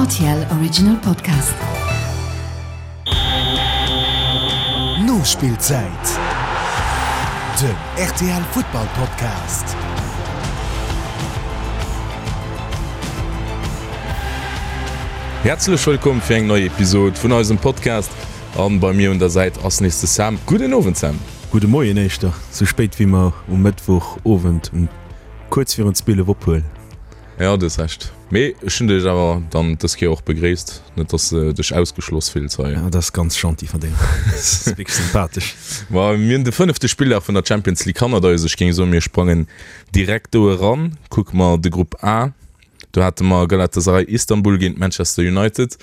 RTL Original Podcast. Nospillzäit, den rtl Futtball Podcast. Häerzlech wëllkomm fir eng nei Episode vun eisem Podcast an bei mir un der Säit ass nees de Sam. Gudden Owend Sam. Gudde Moien éischter, sou spéit wéi mer um Mëttwoch Owend um kuerz virun 12 ophuelen. Jo, du hues Recht. Mee ech hunn dech awer dann dës Kéier och begréisst, net dass de dech ausgeschloss fills hei. Dat ass ganz gentil vun dir. Dat ass wierklech sympathesch. Ma mir hunn de fënnefte Spilldag vun der Champions League hannert eis. Ech géing soen, mir sprangen direkt do eran. Kucke mer de Grupp A. Do hate mer Galatasaray Istanbul géint Manchester United.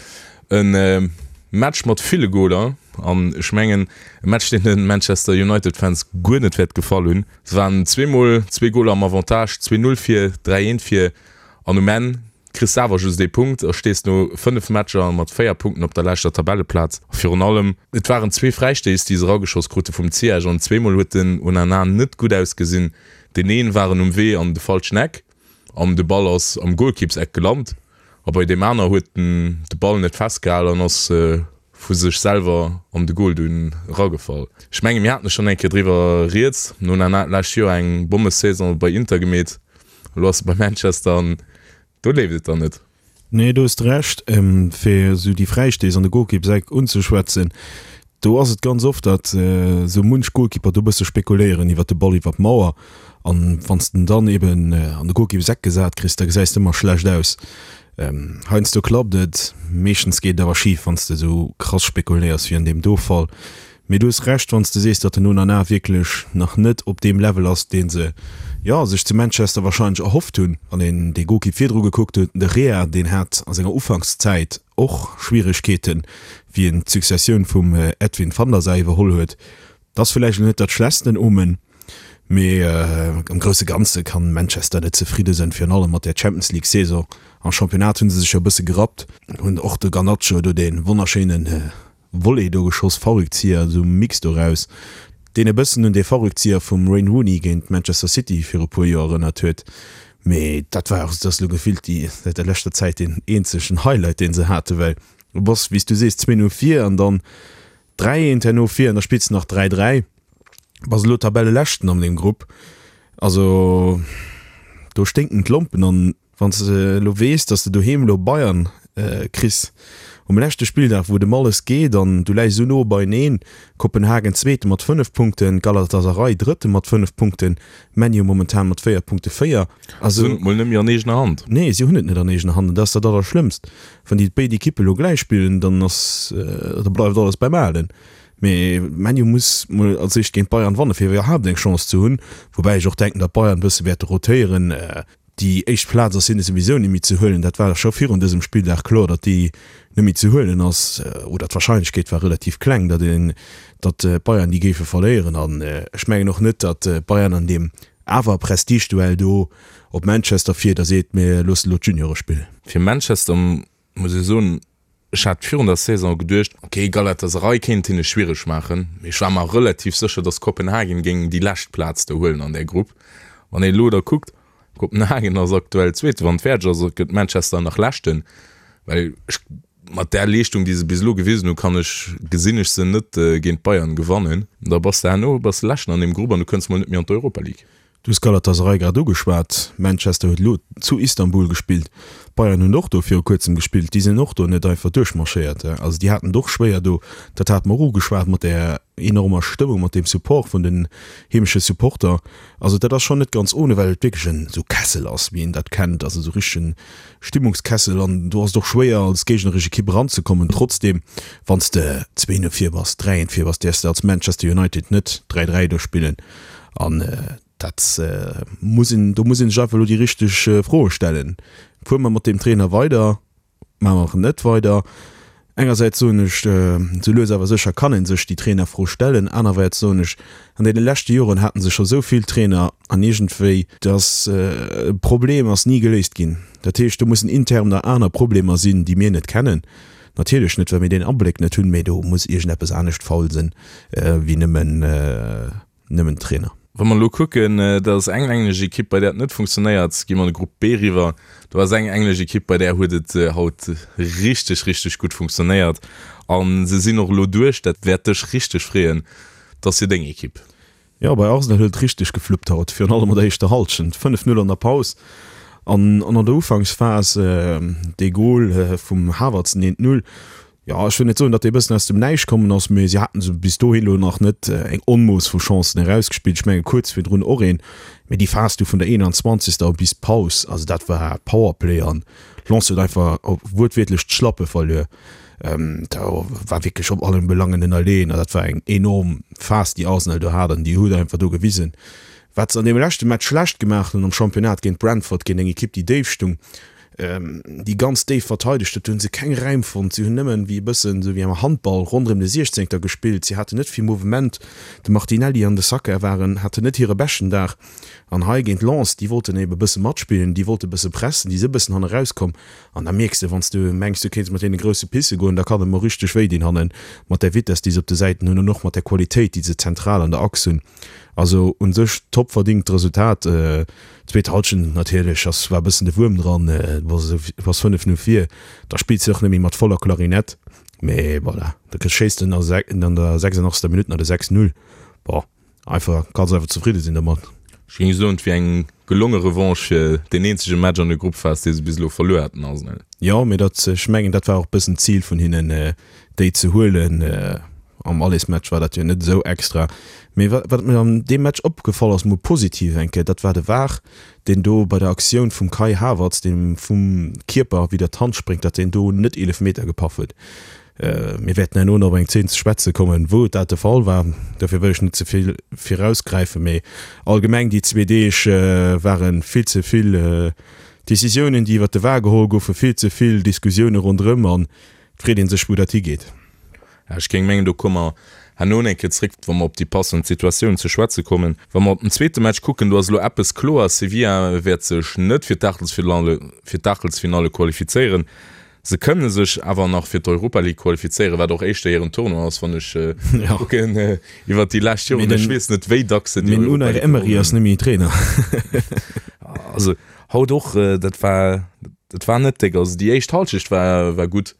E Match mat ville Goler an ech mengen e Match, deen de Manchester United-Fans guer net wäert gefall hunn. Se waren zweemol zwee Goler am Avantage, 2, 0 vir, 3, 1 vir an um Enn kriss de awer just ee Punkt a stees no 5 Matcher mat 4 Punkten op der leschter Tabelleplaz. A virun allem, et waren zwee Fräistéiss, déi se erageschoss krute vum Ziyech an zweemol huet den Onana net gutt ausgesinn. Deen een war en um Wee an de falschen Eck an de Ball ass am Golkippseck gelant a bei deem aner huet en de Ball net festgehal an ass vu sech selwer an de Goal dunn eragefall. Ech menge mir haten schonn eng Kéier driwwer rieds, den Onana hat d'lescht Joer eng Bommesaison bei Inter gemeet, elo ass e bei Manchester an do leeft et dann net. Nee, do hues de Recht. Fir esou déi Fräistéiss an de Golkippseck unzeschwätzen, do ass et ganz oft, datt esou munch Golkipper do e bësse spekuléieren iwwer de Ball iwwer d'Mauer. An wann s de en dann eben an de Golkippseck gesat kriss, da gesäis de ëmmer schlecht aus. Heiansdo klappt et, meeschtens geet et awer schif, wann s de esou krass spekuléiers wéi an deem do Fall. Mee du hues Recht, wann s de sees, datt den Onana wierklech nach net op deem Level ass, dee se, jo, sech zu Manchester warscheinlech erhofft hunn. Wann een dee Golkipp virdru gekuckt huet, den De Gea, deen hat a senger Ufankszäit och Schwieregkeeten, wéi en d'Successioun vum Edwin van der Sar iwwerholl huet. Dat ass villäicht elo net dat schlechtsten Omen. Mee am grousse Ganze kann Manchester net zefridde sënn, virun allem mat där Champions League Saison. Am Championnat hunn se sech jo e bësse gerappt, hunn och de Garnacho do dee wonnerschéine Volley do geschoss, Fallrückzieher, esou Mix doraus, deen e bëssen un dee Fallrückzieher vum Wayne Rooney géint Manchester City viru puer Joer erënnert huet. Mee dat war och, dat ass elo gefillt déi säit der leschter Zäit deen eenzegen Highlight dee se haten, well du bass, wéi s du sees, 2 no vir an dann 3 eent herno vir an da spills de nach 3 3. Bass elo Tabelleleschten an deem Grupp. Also do sténken d'Lompen an wann s de elo weess, datt s de doheem elo Bayern kriss um leschte Spilldag, wou et ëm alles geet an du läis esou no beieneen, Kopenhagen Zweete mat 5 Punkten, Galatasaray Drëtte mat 5 Punkten, ManU momentan mat 4 Punkte 4. Se hunn et mol net méi an eegener Hand. Nee, si hunn et net an eegener Hand an dat ass dat Allerschlëmmst. Wann déi béid Ekippe elo gläich spillen, dann ass, da bleift alles beim Alen. Mee ManU muss mol als éischt géint Bayern wanne fir iwwerhaapt eng Chance ze hunn. Woubäi ech och denken, datt Bayern e bësse wäerte rotéieren. Déi éischt Plaz ass hinne souwisou net méi ze huelen. Dat war scho virun dësem Spilldag kloer, datt déi net méi ze huelen ass. Oder d'Warscheinlechkeet war relativ kleng, datt een, datt d'Bayern déi géife verléieren. An ech mengen och net, datt Bayern an deem awer Prestigeduell do op Manchester fiert a seet, mir loossen elo d'Juniore spillen. Fir Manchester muss ech soen, Ech hat virun der Saison geduecht, ok, Galatasaray kéint hinne schwiereg maachen, mee ech war mer relativ sécher, dass Kopenhagen géing déi lescht Plaz do huelen an där Grupp. Wann een elo da kuckt, Kopenhagen ass aktuell Zweete, wann et fäerdeg ass, gëtt Manchester nach Leschten, well ech mat där Leeschtung, déi se bis elo gewisen hunn, kann ech, gesinn ech se net géint Bayern gewannen. Da bass de herno bass de Leschten an deem Grupp an du kënns mol net méi an d'Europa League. Du hues Galatasaray grad ugeschwat. Manchester huet elo zu Istanbul gespillt. D'Bayern hunn och do viru kuerzem gespillt. Déi sinn och do net einfach duerchmarschéiert. Also déi haten et och schwéier do. Dat hate mer och ugeschwat mat där enormer Stëmmung, mat deem Support vun den heemesche Supporter. Also dat ass schonn net ganz ohne, well et wierklech en esou Kessel ass, wéi een dat kennt, also esou richtegen Stimmungskessel. An do ass et och schwéier als géigneresch Ekipp eranzekommen. Trotzdeem, wann s de 2 no vir bass, 3 eent vir bass, däerfs de als Manchester United net 3 3 do spillen. An dat muss een, do muss ee sech einfach elo déi richteg Froe stellen. Fuere mer mat deem Trainer weider, maache mer net weider? Engersäits soen ech, sou lues awer sécher kann ee sech déi Trainerfro stellen. Anerwäerts soen ech, an deene leschte Joren hate se scho sou vill Trainer an iergendwéi, dass Problem ass ni geléist ginn. Dat heescht, do mussen intern nach aner Problemer sinn, déi mir net kennen. Natierlech net, well mir deen Abléck net hunn, mee do muss iergendeppes anescht faul sinn, wéi nëmmen, nëmmen Trainer. Wa mer elo kucken, dat ass eng englesch Ekipp, bei där et net funktionéiert, gi mer an de Grupp B eriwwer. Do ass eng englesch Ekipp, bei där huet et haut richteg, richteg gutt funktionéiert a se sinn och elo duerch. Dat wäert dech richteg freeën, dat ass jo deng Ekipp. Jo, bei Arsenal huet et richteg gefluppt haut, virun allem an der éischter Hallschent. 5, 0 an der Paus an an der Ufanksphas dee Gol vum Havertz, den 1, 0. Jo, ech wëll net soen, datt dee bëssen aus dem Näischt kommen ass, mee si haten se bis dohin elo nach net eng Onmooss vu Chancen erausgespillt. Ech menge kuerz virdrun och een, mee déi Phas du vun der 21. bis d'Paus, also dat war Powerplay an Lens huet einfach wuertwiertlech d'Schlappe verluer. Do war wierklech op allen Belangen ënnerleeën an dat war eng enorm Phas, déi Arsenal do hat an déi huet einfach do gewisen, wat se an deem leschte Match schlecht gemaach hunn am Championnat géint Brentford, géint eng Ekipp, déi déif stung. déi ganz déif verteidegt huet, do hunn se keng Räim fonnt. Si hunn nëmmen wéi e bëssen esou wéi am Handball ronderëm de Siechzéngter gespillt. Si haten net vill Mouvement. De Martinelli an de Saka waren, haten net hire beschten Dag. An hei géint Lens, déi wollten ebe bësse matspillen, déi wollte bësse pressen, déi si bëssen hanne rauskomm. An da mierks de, wann s du mengs, du kéints mat deene grousse pisse goen, da kann et mol richteg wéi dinn hannen, mat där Vitess, déi se op de Säiten hunn an och mat där Qualitéit, déi se zentral an der Achs hunn. Also un sech top verdingt Resultat. Zweet Halschent natierlech ass war bëssen de Wuerm dran, bass 5 0 vir, da spills de och net méi mat voller Klarinett, mee voilà, da schéiss de an der 86. Minutt nach de 6 0. Bon, einfach kanns einfach zefridde sinn domat. Ech géing soen, et wier eng gelonge Revanche fir deen eenzege Match an der Gruppphas, dee se bis elo verluer haten, Arsenal. Jo, mee dat, ech mengen, dat war och bëssen d'Zil vun hinnen, déi ze huelen. Am Allesmatch war dat jo net esou extra. Mee wat wat mir an deem Match opgefall ass, mol positiv eng Kéier, dat war de var, deen do bei der Aktioun vum Kai Havertz, deen vum Kierper widder d'Hand spréngt, datt deen do net Eelefmeter gepaff huet. Mir wäerten herno nach op eng Zeen ze schwätze kommen, wou dat de Fall war. Dofir wëll ech net ze vill virausgräifen, mee allgemeng déi zwee Deeg ware vill ze vill Decisiounen, déi iwwert de var geholl goufen, vill ze vill Diskussioune ronderëm an et freet ee sech, wou dat higeet. Ech géing mengen, do komme mer herno eng Kéier zréck, wa mer op déi passend Situatioun ze schwätze kommen. Wa mer op den zweete Match kucken, do ass elo eppes kloer, Sevilla wäert sech net fir d'Aachtelsfinalle fir d'Aachtelsfinalle qualifizéieren. Se kënne sech awer nach fir d'Europa League qualifizéieren, wat och éischter hiren Tournoi ass, wann ech kucken iwwert déi lescht Joren. Ech weess net, wéi dacks se déi Europa League gewonnen hunn. Mee den Unai Emery ass net méi Trainer. Also haut och, dat war, dat war net déck. Also déi éischt Halschecht war, war gutt.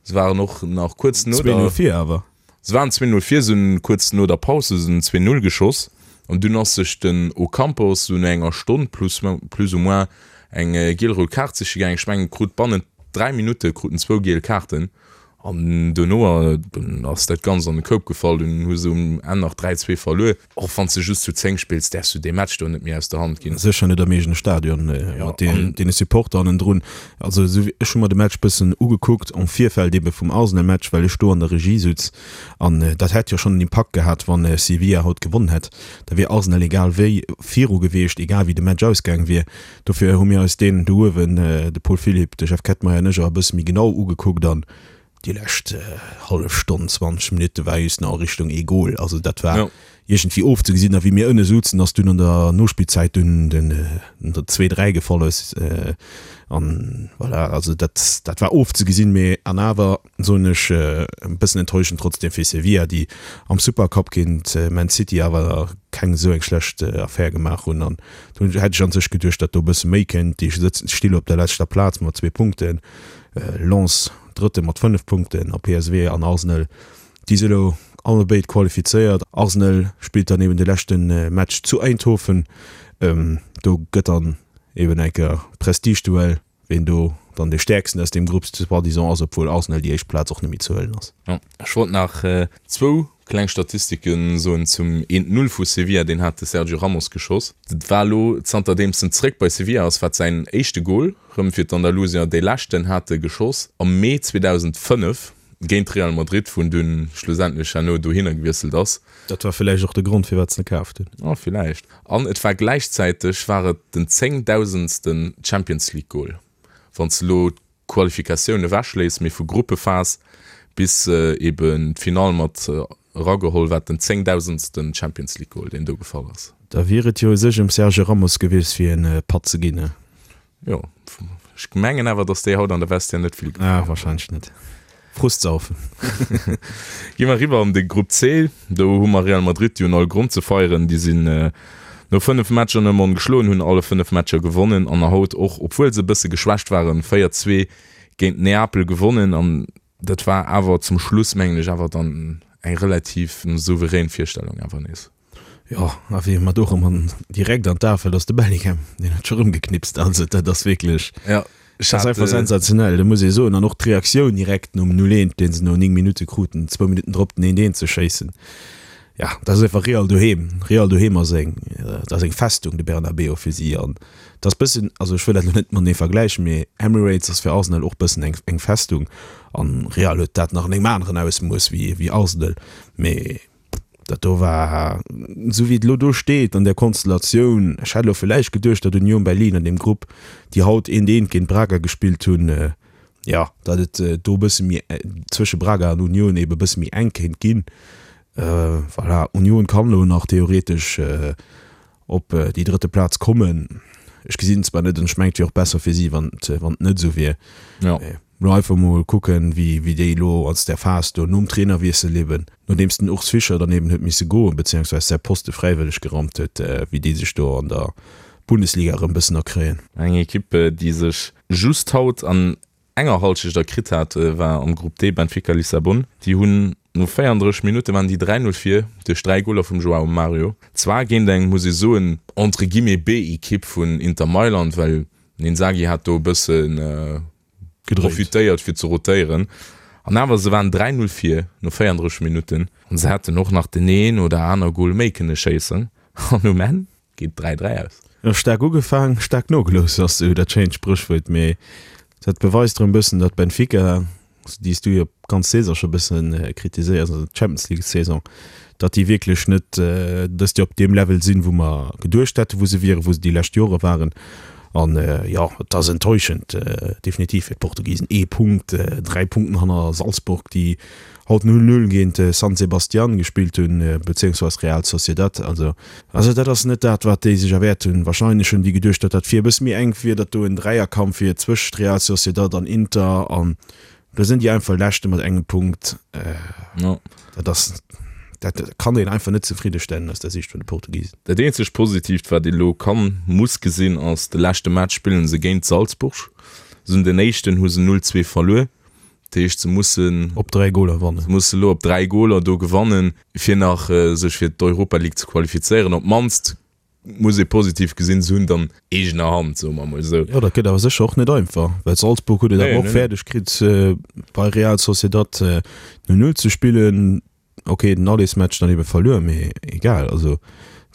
Se waren och nach kuerz no der. 2-0 vir awer. Se waren 2-0 vir, se hunn kuerz no der Paus hu se den 2-0 geschoss an dunn ass sech den Ocampos sou no enger Stonn plus plus ou moins eng giel-rout Kaart siche gaangen. Ech mengen krut bannent 3 Minutte krut en zwou giel Kaarten an dono dunn ass dat Ganzt an de Koup gefall. Dunn hu se um Enn nach 3, 2 verluer. Och wann s de just zu 10 spills, däerfs du dee Match do net méi aus der Hand ginn. Sécher net am eegene Stadion mat deene Supporter hannendrun. Also esou wéi, ech hu mer de Match bëssen ugekuckt am Virfeld ebe vum Arsenal-Match, well ech do an der Regie sutz. An dat hätt jo schonn en Impakt gehat, wann Sevilla haut gewonnen hätt. Da wier Arsenal egal wéi viru gewiescht, egal wéi de Match ausgaang wier. Dofir hu mir eis deen do uewen, de Paul Philipp, de Jeff Kettmeyer an ech, och e bësse méi genau ugekuckt. An Déi lescht hallef Stonn, 20 Minutte war just nach a Richtung ee Gol. Also dat war ja. iergendwéi ofzegesinn. A wéi mir ënne souzen, ass dunn an der Nospillzäit dunn den 2, 3 gefall ass. An voilà, also dat, dat war ofzegesinn. Mee an awer soen ech, e bëssen enttäuschend trotzdem fir Sevilla, déi am Supercup géint Man City awer keng esou eng schlecht Affär gemaach hunn. An do hätt ech an sech geduecht, datt do e bësse méi kënnt. Déi sëtzen, sti lo op der leschter Plaz mat zwee Punkten. Lens Drëtte mat 5 Punkten a PSV an Arsenal, déi si elo allebéid qualifizéiert. Arsenal spillt dann eben de leschte Match zu Eindhoven. Do gëtt dann eben eng Kéier Prestigeduell, ween do dann dee Stäerksten aus deem Grupp soi-disant ass, obwuel Arsenal déi éischt Plaz och net méi ze huelen ass. Ech wollt nach zwou kleng Statistike soen zum 1, 0 vu Sevilla, deen hat de Sergio Ramos geschoss. Dat war elo, zanterdeems en zeréck bei Sevilla ass, war et säin éischte Gol rëm fir d'Andalusier. Dee leschten hat e geschoss am Mee 2005 géint Real Madrid, wou en dunn schlussendlech herno dohinner gewiesselt ass. Dat war villäicht och de Grond, firwat se en kaaft hunn. Oh, villäicht. An et war gläichzäiteg war et den zéngdausendsten Champions League Gol, wann s de elo Qualifikatioun ewechléisst, mee vu Gruppephas bis eben d'Finall mat erageholl, wat den zéngdausendsten Champions League Goal, deen do gefall ass. Da wier et jo u sech ëm Sergio Ramos gewiescht fir en Patt ze ginn, ne? Jo, ech mengen awer, datt déi haut an der Vestiaire net vill gefall. Ah, wahrscheinlech net. Frustsaufen. Gi mer eriwwer an de Grupp C. Do hu mer Real Madrid, déi hunn all Grond ze feieren. Déi sinn no 5 Matcher nëmme ongeschloen, hunn alle 5 Matcher gewonnen an haut och, obwuel se e bësse geschwächt waren, 4, 2 géint Neapel gewonnen. An dat war awer zum Schluss, mengen ech, awer dann eng relativ souverän Virstellung awer nees. Jo, a wéi mer do erëm an direkt an d'A fält, ass de Bellingham, deen huet scho rëm geknipst. Also dat ass wierklech, Ja, dat ass einfach sensationell, dat muss ee soen. An och d'Reaktioun direkt nom 0, 1, dee se no 9 Minutte kruten, zwou Minutten drop den 1, 1 ze schéissen, ja, dat ass einfach Real doheem. Real doheem ass eng, dat ass eng Festung, de Bernabeu fir si. An dat ass bëssen, also ech wëll dat elo net matenee vergläichen, mee Emirates ass fir Arsenal och bëssen eng, eng Festung. An Real huet dat nach an engem aneren Ausmooss wéi, wéi Arsenal. Mee Dat do war, esou wéi et elo do steet an där Konstellatioun, ech hätt elo villäicht geduecht, datt Union Berlin an deem Grupp, déi haut eent eent géint Braga gespillt hunn, jo, datt et do e bësse méi zwësche Braga an Union eebe e bësse méi enk kéint ginn. Voilà, Union kann elo nach theoretesch op déi drëtte Plaz kommen. Ech gesinn et zwar net an ech mengen et wier och besser fir si, wann et wann et net esou wier. Ja. Mee elo einfach mol kucken, wéi wéi déi elo aus där Phas do nom Trainerwiessel eben, nodeems den Urs Fischer dann eben huet misse goen, beziehungsweise säi Poste fräiwëlleg geraumt huet, wéi déi sech do an der Bundesliga erëm e bëssen erkréien. Eng Ekipp, déi sech just haut an enger Halschecht erkritt hat, war am Grupp D Benfica Lissabon. Déi hunn no 34 Minutte waren déi 3, 0 vir duerch 3 Goler vum Joao Mario. Zwar géint eng, muss ee soen, entre guillemets B-Ekipp vun Inter Mailand, well den Inzaghi hat do e bësse profitéiert fir ze rotéieren. An awer, se waren 3, 0 vir no 34 Minutten an se hätten och nach den een oder aner Gol méi kënne schéissen an um Enn Geet 3, 3 aus. Jo, staark ugefaang, staark nogelooss ass esou dat schéint Spréchwuert, mee dat beweist erëm bëssen, datt Benfica, déi s du jo d'ganz Saison scho bëssen kritiséiers, also d'Champions League Saison, datt déi wierklech net dëst Joer op deem Level sinn, wou mer geduecht hätten, wou se wieren, wou se déi lescht Jore waren. An jo, et ass enttäuschend definitiv fir d'Portugisen. Ee Punkt, 3 Punkten hanner Salzburg, déi haut 0, 0 géint San Sebastian gespillt hunn, bezéiungsweis Real Sociedad. Also, also dat ass net dat, wat déi sech erwäert hunn. Wahrscheinlech hunn déi geduecht, datt dat vir e bësse méi enk wier, datt do en Dräierkampf wier zwëscht Real Sociedad an Inter an do sinn déi einfach Leschte mat engem Punkt. Dat ass, dat kann een einfach net zefriddestellen aus der Siicht vun de Portugisen. Dat eenzegt Positiivt, wat ee lo kann, muss gesinn, ass, de leschte Match spillen se géint Salzburg. Se hunn den éischten hu se 0, 2 verluer. Dat heescht, se mussen. Op 3 Goler wannen. Se musse lo op 3 Goler do gewannen, fir nach sech fir d'Europa League ze qualifizéieren. Op d'mannst muss ee positiv gesinn, se hunn et an eegener Hand, soe mer emol esou. Jo, dat gëtt awer sécher och net einfach, well Salzburg huet et awer och fäerdeg kritt, bei Real Sociedad 0, 0 ze spillen. Ok, den Allesmatch dann ebe verluer, mee egal. Also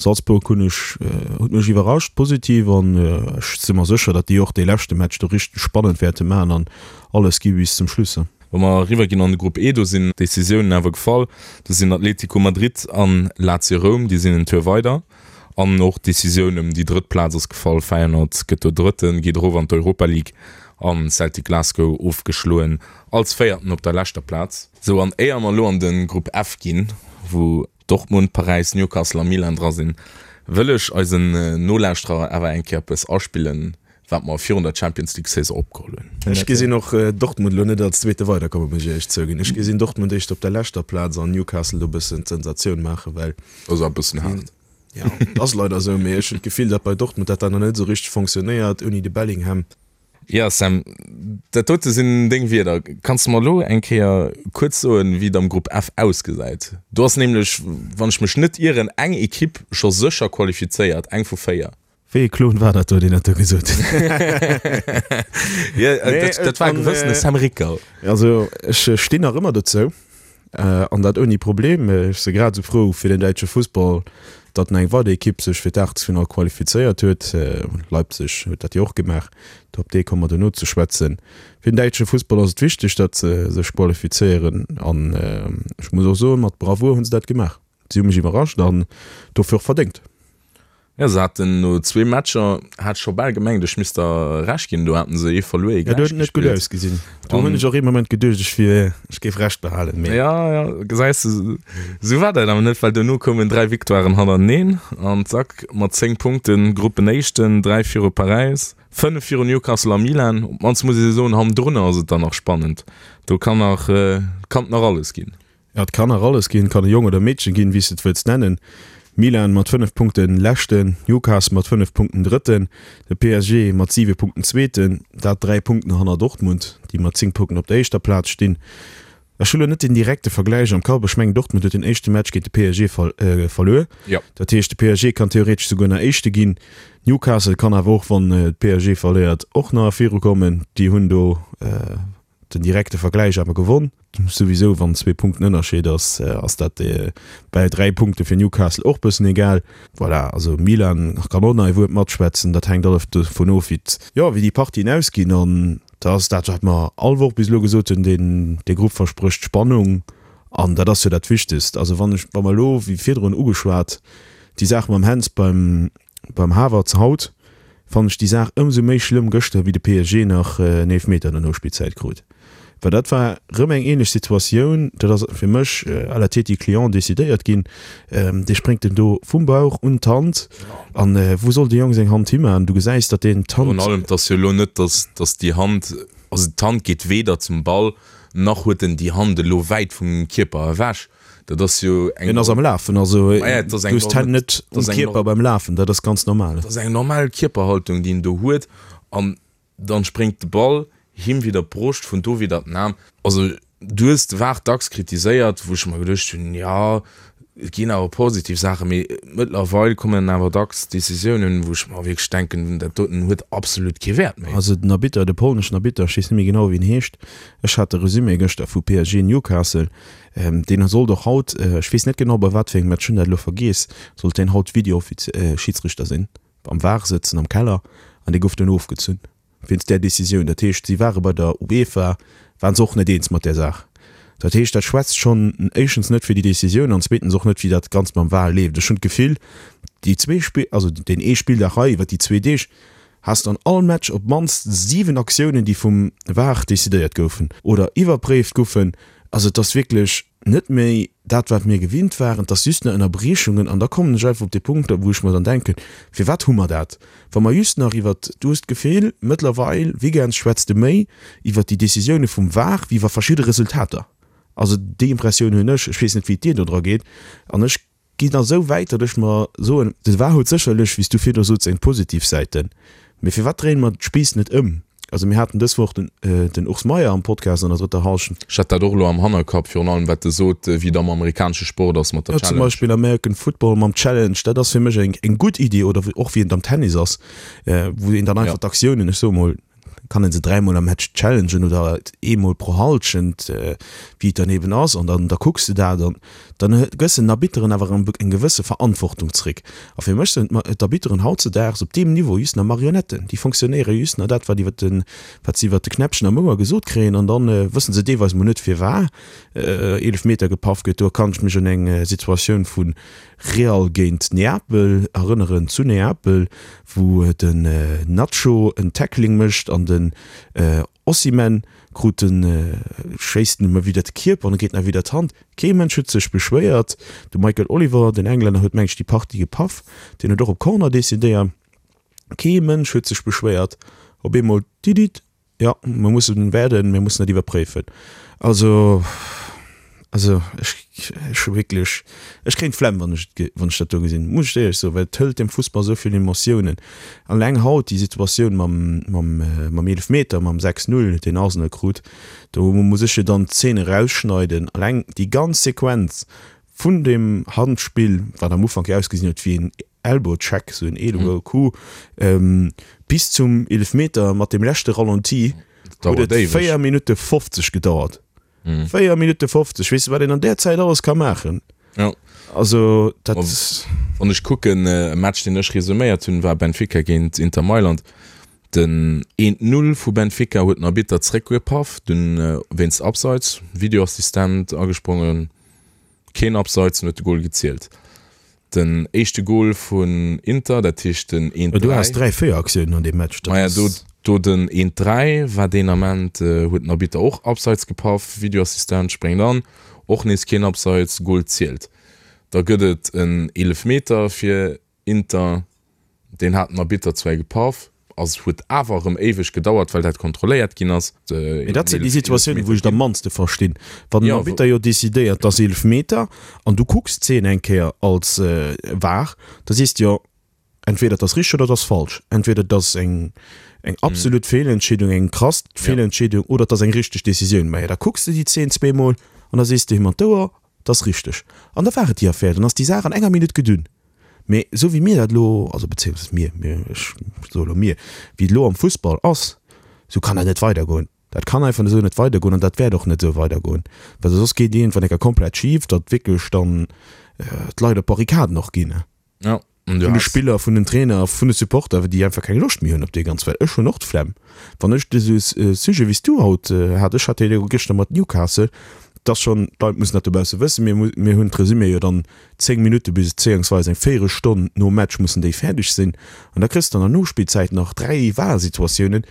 Salzburg hunn ech, huet mech iwwerrascht positiv an ech si mer sécher, datt déi och dee leschte Match do richteg spannend wäerte maachen an alles gi bis zum Schluss. Wa mer eriwwer ginn an de Grupp E, do sinn d'Decisiounen awer gefall. Do sinn Atlético Madrid an Lazio Roum, déi sinn en Tour weider. An och d'Decisioun ëm déi drëtt Plaz ass gefall. Feyenoord gëtt do Drëtten, geet erof an d'Europa League an Celtic Glasgow ofgeschloen als Véierten op der leschter Plaz. Sou, an éier mer elo an de Grupp F ginn, wou Dortmund, Paräis, Newcastle a Milan dra sinn, wëll ech eisen Nolauschterer awer eng Kéier eppes aspillen, wat mer virun der Champions League Saison opgeholl hunn. Ech gesinn och Dortmund elo net als Zweete weiderkommen, muss ech éierlech zouginn. Ech gesinn Dortmund éischter op der leschter Plaz an Newcastle do e bëssen d'Sensatioun maachen, well. Dat ass awer e bëssen haart. Jo, et ass leider esou, mee ech hunn d'Gefill, datt bei Dortmund dat dann nach net esou richteg fonctionnéiert ouni de Bellingham. Jo Sam, dat dote sinn deng Wierder. Kanns de mer elo eng Kéier kuerz soen, wéi et am Grupp F ausgesäit? Do ass nämlech, wann ech mech net ieren, eng Ekipp scho sécher qualifizéiert, eng vu 4. Wéi ee Klon war dat do, deen dat do gesot huet? Jo, dat war e gewëssene Sam Ricker. Also ech stinn nach ëmmer dozou. An dat ouni Problem. Ech si grad esou frou fir den däitsche Fussball, datt eng weider Ekipp sech fir d'Aachtelsfinall qualifizéiert huet. Leipzig huet dat jo och gemaach, op dee komme mer duerno ze schwätzen. Fir den däitsche Fussball ass et wichteg, datt se sech qualifizéieren an ech muss och soen, mat Bravour hu se dat gemaach. Si hu mech iwwerrascht an dofir och verdéngt. Jo, se haten no zwee Matcher, hat scho bal gemengt, ech misst der Recht ginn, do haten se ee verluer, ee Ja, do gläich huet et net gutt gespillt. ausgesinn. Do hunn ech och ee Moment geduecht, ech wier, ech géif Recht behalen, mee. Ja, ja, gesäis de, esou war dat awer net, well dono koumen 3 Victoiren hannerteneen an zack, mat 10 Punkten Gruppenéischten, 3 viru Paräis, 5 viru Newcastle a Milan. Op d'mannst muss ee soen, hannendrunner ass et dann nach spannend, do kann nach, kann et nach alles ginn. Ja, et kann nach alles ginn, et kann e Jong oder e Meedchen ginn, wéi s de et wëlls nennen. Milan mat 5 Punkten Leschten, Newcastle mat 5 Punkten Drëtten, de PSG mat 7 Punkten Zweeten, dat 3 Punkten hanner Dortmund, déi mat 10 Punkten op der éischter Plaz stinn. Ech hu lo net den direkte Vergläich am Kapp, ech mengen Dortmund huet den éischte Match géint de PSG verluer. Dat heescht de PSG kann theoretesch souguer nach Éischte ginn. Newcastle kann awer och, wann de PSG verléiert, och nach virukommen. Déi hunn do Den direkte Vergläich awer gewonn. Souwisou wann zwee Punkten Ënnerscheed ass, ass dat bäi 3 Punkte fir Newcastle och bëssen egal. Voilà, also Milan kann och nach ee Wuert matschwätzen. Dat hänkt alles dovun of wéi jo wéi déi Partien ausginn. An da ass dat wat mer all Woch bis elo gesot hunn, deen dee Grupp versprécht Spannung an dat ass jo dat Wichtegst. Also wann ech wa mer elo wéi virdrun ugeschwat déi Saach mam Hens beim beim Havertz haut, fannen ech déi Saach ëmsou méi schlëmm gëschter wéi de PSG nach en Eelfmeter an der Nospillzäit krut, well dat war rëm eng ähnlech Situatioun. Dat ass fir mech à la tête du client decidéiert ginn. Dee spréngt en do vum Bauch un d'Hand an wou soll de Jong seng Hand himan? Du gesäis, datt deen d'Hand. Virun allem, et ass jo elo net, datt datt déi Hand, also d'Hand geet weder zum Ball nach huet en déi Hand elo wäit vum Kierper ewech. Dat ass jo eng. En ass am Lafen, also du hues d'Hänn net um Kierper beim Lafen, dat ass ganz normal. Dat ass eng normal Kierperhaltung, déi en do huet an dann spréngt de Ball him widder d'Broscht, vun do widder den Aarm. Also du hues de VAR dacks kritiséiert, wou ech mer geduecht hunn, jo et ginn awer positiv Saachen, mee mëttlerweil kommen awer dacks Decisiounen, wou ech mer wierklech denken, dat doten huet absolut kee Wäert méi. Also den Arbitter, de polneschen Arbitter, ech weess net méi genau wéi en heescht, ech hat de Resumé gëschter vu PSG Newcastle, Deen sollt och haut, ech weess net genau bei wat fir engem Match, hunn dat elo vergiess, sollt deen haut Video-Schiedsrichter sinn, am VAR sëtzen am Keller, an dee gouf dunn ofgezunn wéinst där Decisioun. Dat heescht, si ware bei der UEFA, ware se och net eens mat där Saach. Dat heescht, dat schwätzt schonn éischtens net fir déi Decisioun an zweetens och net, wéi dat Ganzt mam VAR leeft. Ech hunn d'Gefill, déi zwee Spill, also deen ee Spilldag hei iwwer déi zwee Deeg, has de an all Match op d'mannst 7 Aktiounen, déi vum VAR decidéiert goufen oder iwwerpréift goufen. Also et ass wierklech net méi dat, wat mir gewinnt waren, et ass just nach Ënnerbriechungen. An da kommen ech einfach op dee Punkt, wou ech mer dann denken, Firwat hu mer dat, wa mer just nach iwwert, du hues d'Gefill, mëttlerweil, Weekends schwätzt de méi iwwert déi Decisioune vum VAR wéi iwwer verschidde Resultater. Also déi Impressioun hunn ech. Ech weess net, wéi et dir do dra geet. An ech Ginn da sou wäit, datt ech mer soen, de var huet sécherlech, wéi s du virdru sots, seng positiv Säiten, mee firwat dréine mer d'Spiiss net ëm? Also mir haten dës Woch den den Urs Meier am Podcast an der drëtter Hallschent. Ech hat dat och elo am Hannerkapp, virun allem wat e sot, wéi et am amerikanesche Sport ass mat der Ja, zum Challenge. Beispill American Football mam Challenge, dat ass fir mech eng eng gutt Iddi, oder och wéi et am Tennis ass, wou een dann einfach d'Aktiounen, ech soe mol, kann een se dräimol am Match challengen oder eemol pro Halschent, wéi et dann eben ass, an dann da kucks de dat an dann gëss den Arbitteren awer eng gewësse Verantwortung zréck. A fir mech sinn d'Arbitteren hautzedaags op deem Niveau just nach Marionetten, déi fonctionnéiere just nach dat, wat iwwer de wat se iwwer de Knäppchen am Ouer gesot kréien an dann wësse se deelweis mol net firwar Eelefmeter gepaff gëtt. Do kann ech mech un eng Situatioun vu Real géint Neapel erënneren, zu Neapel, wou den Nacho en Tackling mécht an den Osimhen krut den, schéisst en ëm widder de Kierper an e geet nach widder d'Hand. Kee Mënsch huet sech beschwéiert. De Michael Oliver, den Englänner, huet meng ech déi Partie gepaff, deen huet och op Corner decidéiert. Kee Mënsch huet sech beschwéiert. Op eemol, didit, Jo, mir mussen wäerden, mir mussen dat iwwerpréifen. Also, also ech, ech hu wierklech, ech kréien d'Flemm, wann ech et, wann ech dat do gesinn, muss ech éierlech soen, well et hëlt dem Fussball esou vill Emotiounen. Alleng haut déi Situatioun mam, mam, mam Eelefmeter, mam 6, 0, deen Arsenal krut, do muss ech jo dann d'Zeen erausschneiden. Alleng déi ganz Sequenz vun deem Handspill, wat am Ufank jo ausgesinn huet wéi een Elbow Check, sou en Elbow Coup, bis zum Eelefmeter mat dem leschte Ralenti huet et 4 Minutte 50 gedauert. 4 Minutte 50, weess de wat een an där Zäit alles ka maachen? Jo. Also dat. Wann ech kucken, e Match deen ech resuméiert hunn, war Benfica géint Inter Mailand. Den eent Null vu Benfica huet den Arbitter zréckgepaff, dunn wéinst Abseits, Videoassistent agesprongen, keen Abseits, en huet de Gol gezielt. Den éischte Gol vun Inter, dat heescht den 1, 3. Du has 3, 4 Aktiounen an deem Match. Maja, do, do den 1, 3 war deen Ament, huet den Arbitter och Abseits gepaff, Videoassistent spréngt an, och nees keen Abseits, Gol zielt. Da gëtt et en Eelefmeter fir Inter, deen hat den Arbitter zwar gepaff, ass huet awer erëm éiweg gedauert, well dat kontrolléiert ginn ass. Mee dat sinn déi Situatiounen, wou ech et am mannste verstinn. Wann den Arbitter jo decidéiert, et ass Eelefmeter, an du kucks d'Zeen eng Kéier als var, da sees de jo, entweder et ass richteg oder et ass falsch. Entweder et ass eng eng absolut Feelentscheedung, eng krass Feelentscheedung, oder et ass eng richteg Decisioun. Majo, da kucks de déi Zeen zweemol an da sees de him an d'Ouer, et ass richteg. An da war et déi Affär, dann ass déi Saach an enger Minutt gedunn. Mee esou wéi mir dat elo, also bezéiungsweis mir, mir, ech soe elo mir, wéi et elo am Fussball ass, esou kann dat net weidergoen. Dat kann einfach esou net weidergoen an dat wäert och net esou weidergoen, well soss geet iergendwann eng Kéier komplett schif, datt wierklech dann d'Leit op d'Barrikaden och ginn. Ja, an du Vun de Spiller, vun den Trainer, vun de Supporter, déi einfach keng Loscht méi hunn op dee ganz, well ech hunn och d'Flemm, wann ech esou e Sujet wéi s du haut hat, ech hat dee jo gëschter mat Newcastle, 't ass schonn, d'Leit mussen dat dobausse wëssen, mir, mir hunn d'Resumé jo dann 10 Minutte bis bezéiungsweis eng Véierelstonn nom Match mussen déi fäerdeg sinn an da kriss de an der Nospillzäit nach 3 VAR-Situatiounen.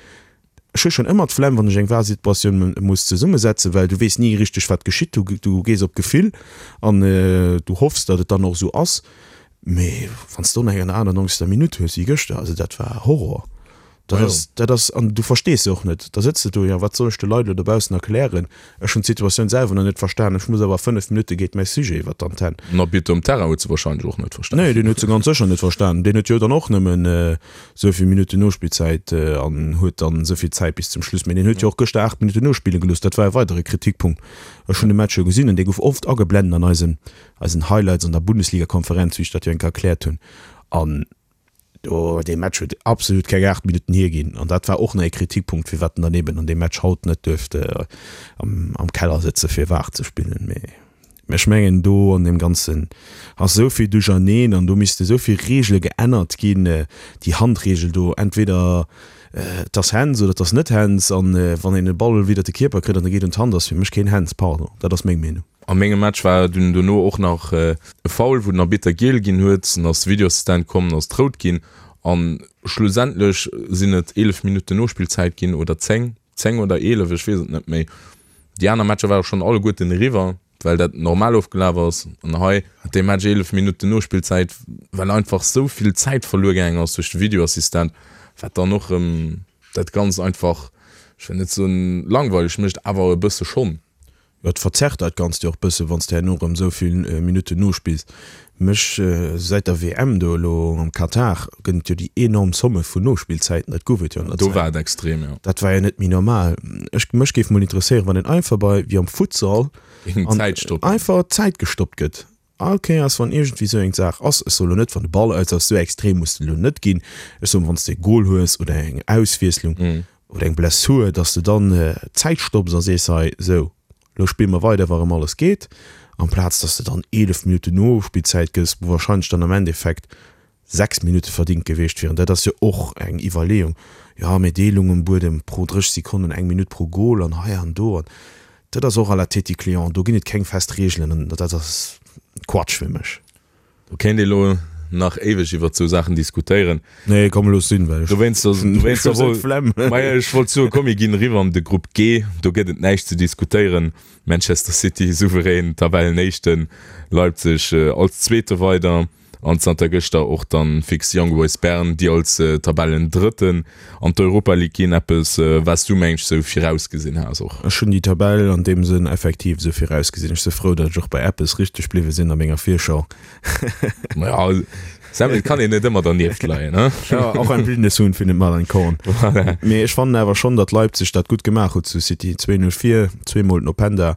Ech hu schonn ëmmer d'Flemm, wann ech eng VAR-Situatioun muss zesummesetzen, well du weess ni richteg wat geschitt. Du du gees op d'Gefill an du hoffs, datt et dann och esou ass. Mee wann s de do nach eng an der 98. Minutt hues wéi gëschter, also dat war Horror. Dat ass, dat ass, an du verstees se och net. Da sëtz de do, jo, wat soll ech de Leit elo dobaussen erklären? Ech hunn d'Situatioun selwer nach net verstan, ech muss awer a 5 Minutte geet mäi Sujet iwwer d'Antenn. Den Arbitter um Terrain huet se wahrscheinlech och net verstan. Nee, deen huet se ganz sécher net verstan. Deen huet jo dann och nëmmen esou vill Minutten Nospillzäit an huet dann esou vill Zäit bis zum Schluss. Mee deen huet jo och gëschter 8 Minutten nospille gelooss. Dat war e weidere Kritikpunkt. Ech hunn de Match jo gesinn an dee gouf oft ageblenden an eisen, eisen Highlights an der Bundesligakonferenz, wéi ech dat jo eng Kéier erkläert hunn. An Do, dee Match huet absolut keng 8 Minutten hierginn an dat war och nach ee Kritikpunkt, firwat en dann eben an deem Match haut net duerft am, am Keller sëtze fir VAR ze spillen. Mee ech mengen, do an deem Ganzen ass esou vill Duercherneen an do misste esou vill Reegele geännert ginn, déi Handreegel do, entweder et ass Hands oder et ass net Hands an wann een e Ball widder de Kierper kritt an e geet un d'Hand, ass fir mech keen Hands, pardon, dat ass meng Meenung. A mengem Match war dunn dono och nach e Foul, wou den Arbitter giel ginn huet. Dann ass de Videoassistent komm, dann ass et rout ginn. A schlussendlech sinn et 11 Minutten Nospillzäit ginn oder 10, 10 oder 11, ech weess et net méi. Déi aner Matcher ware schonn alleguerten eriwwer, well dat normal ofgelaf ass. An hei hat dee Match 11 Minutten Nospillzäit, well einfach esou vill Zäit verluer gaangen ass duerch de Videoassistent, wat dann och erëm dat Ganzt einfach, ech wëll net soen langweileg mécht, awer e bësse schonn. Jo, et verzerrt dat Ganzt jo och bësse wanns de herno erëm esou vill Minutten nospills. Mech, säit der WM do elo am Katar gëtt et jo déi enorm Somme vun Nospillzäiten, dat gouf et jo an der Do war et extrem, jo. Dat war jo net méi normal. Ech, mech géif mol interesséieren, wann een einfach bei, wéi am Futsal, Géing d'Zäit stoppen. einfach d'Zäit gestoppt gëtt. All Kéiers wann iergendwéi sou eng Saach ass, ech soe lo net wann de Ball aus ass, sou extrem muss et elo net ginn, ech soen wann s de e Gol hues oder eng Auswiesslung oder eng Blessur, datt s de dann d'Zäit stopps a sees, hei sou lo spille mer weider wa rëm alles geet, amplaz datt s de dann 11 Minutten Nospillzäit gëss, wou warscheinlech dann am Endeffekt 6 Minutte verdingt gewiescht wieren. Dat ass jo och eng Iwwerleeung, jo mee Deelung um Buedem pro 30 Sekonnen, eng Minutt pro Gol an hei an do an dat ass och à la tête du client. Do ginn et keng fest Reegelen an dat ass Quatsch fir mech. Do kéint ee lo nach éiweg iwwert sou Saachen diskutéieren. Nee komm looss sinn, well ech Dowéinst dowéinst hu sou d'Flemm. Majo ech wollt soen, komm mir ginn eriwwer an de Grupp G, do gëtt et näischt ze diskutéieren. Manchester City souverän Tabellenéischten, Leipzig als Zweete weider. An zanter gëschter och dann fix Young Boys Bern, déi als Tabellendrëtten an d'Europa League ginn. Eppes wat s du mengs sou virausgesinn has och? Ech hunn déi Tabell an deem Sënn effektiv esou virausgesinn. Ech si frou, datt ech och bei eppes richteg bliwwe sinn a menger Virschau. Maja, Sam, et kann een net ëmmer dernieft leien, he? Ja, auch ein blindes Huhn findet mal ein Korn. Voilà. Mee ech fannen awer schonn, datt Leipzig dat gutt gemaach huet zu City. 2-0 vir, zweemol den Openda.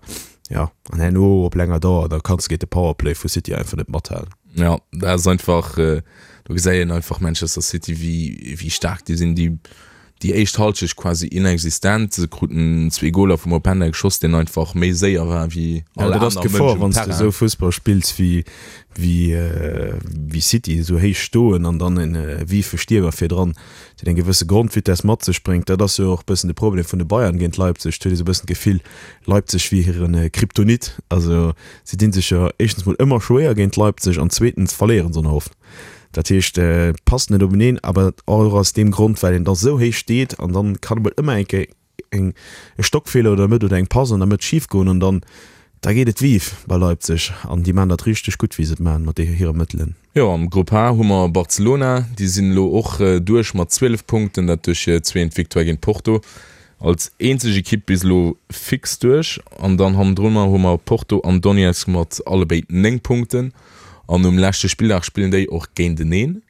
Ja, an herno op länger Dauer, da kanns de géint de Powerplay vu City einfach net mathalen. Ja, dat ass einfach, do gesäit een einfach Manchester City, wéi, wéi staark déi sinn. Déi. Déi éischt Halschecht quasi inexistent. Se kruten zwee Goler vum Openda geschoss, deen einfach méi séier war wéi all aner Dat ass Mënsch d'Gefor, um wann s de Terrain. esou Fussball spills wéi wéi City, esou héich stoen an dann e wiefe Stiermer virdran, deen eng gewësse Grondvitess mat sech bréngt. Dat ass jo och e bëssen de Problem vun de Bayern géint Leipzig. Et huet ee sou e bëssen d'Gefill, Leipzig wier hire Kryptonit. Also si dinn sech jo éischtens mol ëmmer schwéier géint Leipzig an zweetens verléieren se och oft. Dat heescht, et passt net openeen, awer och aus deem Grond, well een da sou héich steet an dann kann emol ëmmer eng Kéier eng e Stockfeeler oder Mëtt oder eng Pass an der Mëtt schif goen an dann da geet et vive bei Leipzig an déi maachen dat richteg gutt, wéi se et maachen mat hire Mëttelen. Jo, am Grupp H hu mer Barcelona, déi sinn elo och duerch mat 12 Punkten, dat duerch hir zweent Victoire géint Porto. Als eenzeg Ekipp bis elo fix duerch. An dann hannendrunner hu mer Porto an Donetsk mat allebéid 9 Punkten. An um leschte Spilldag spillen déi och géinteneen,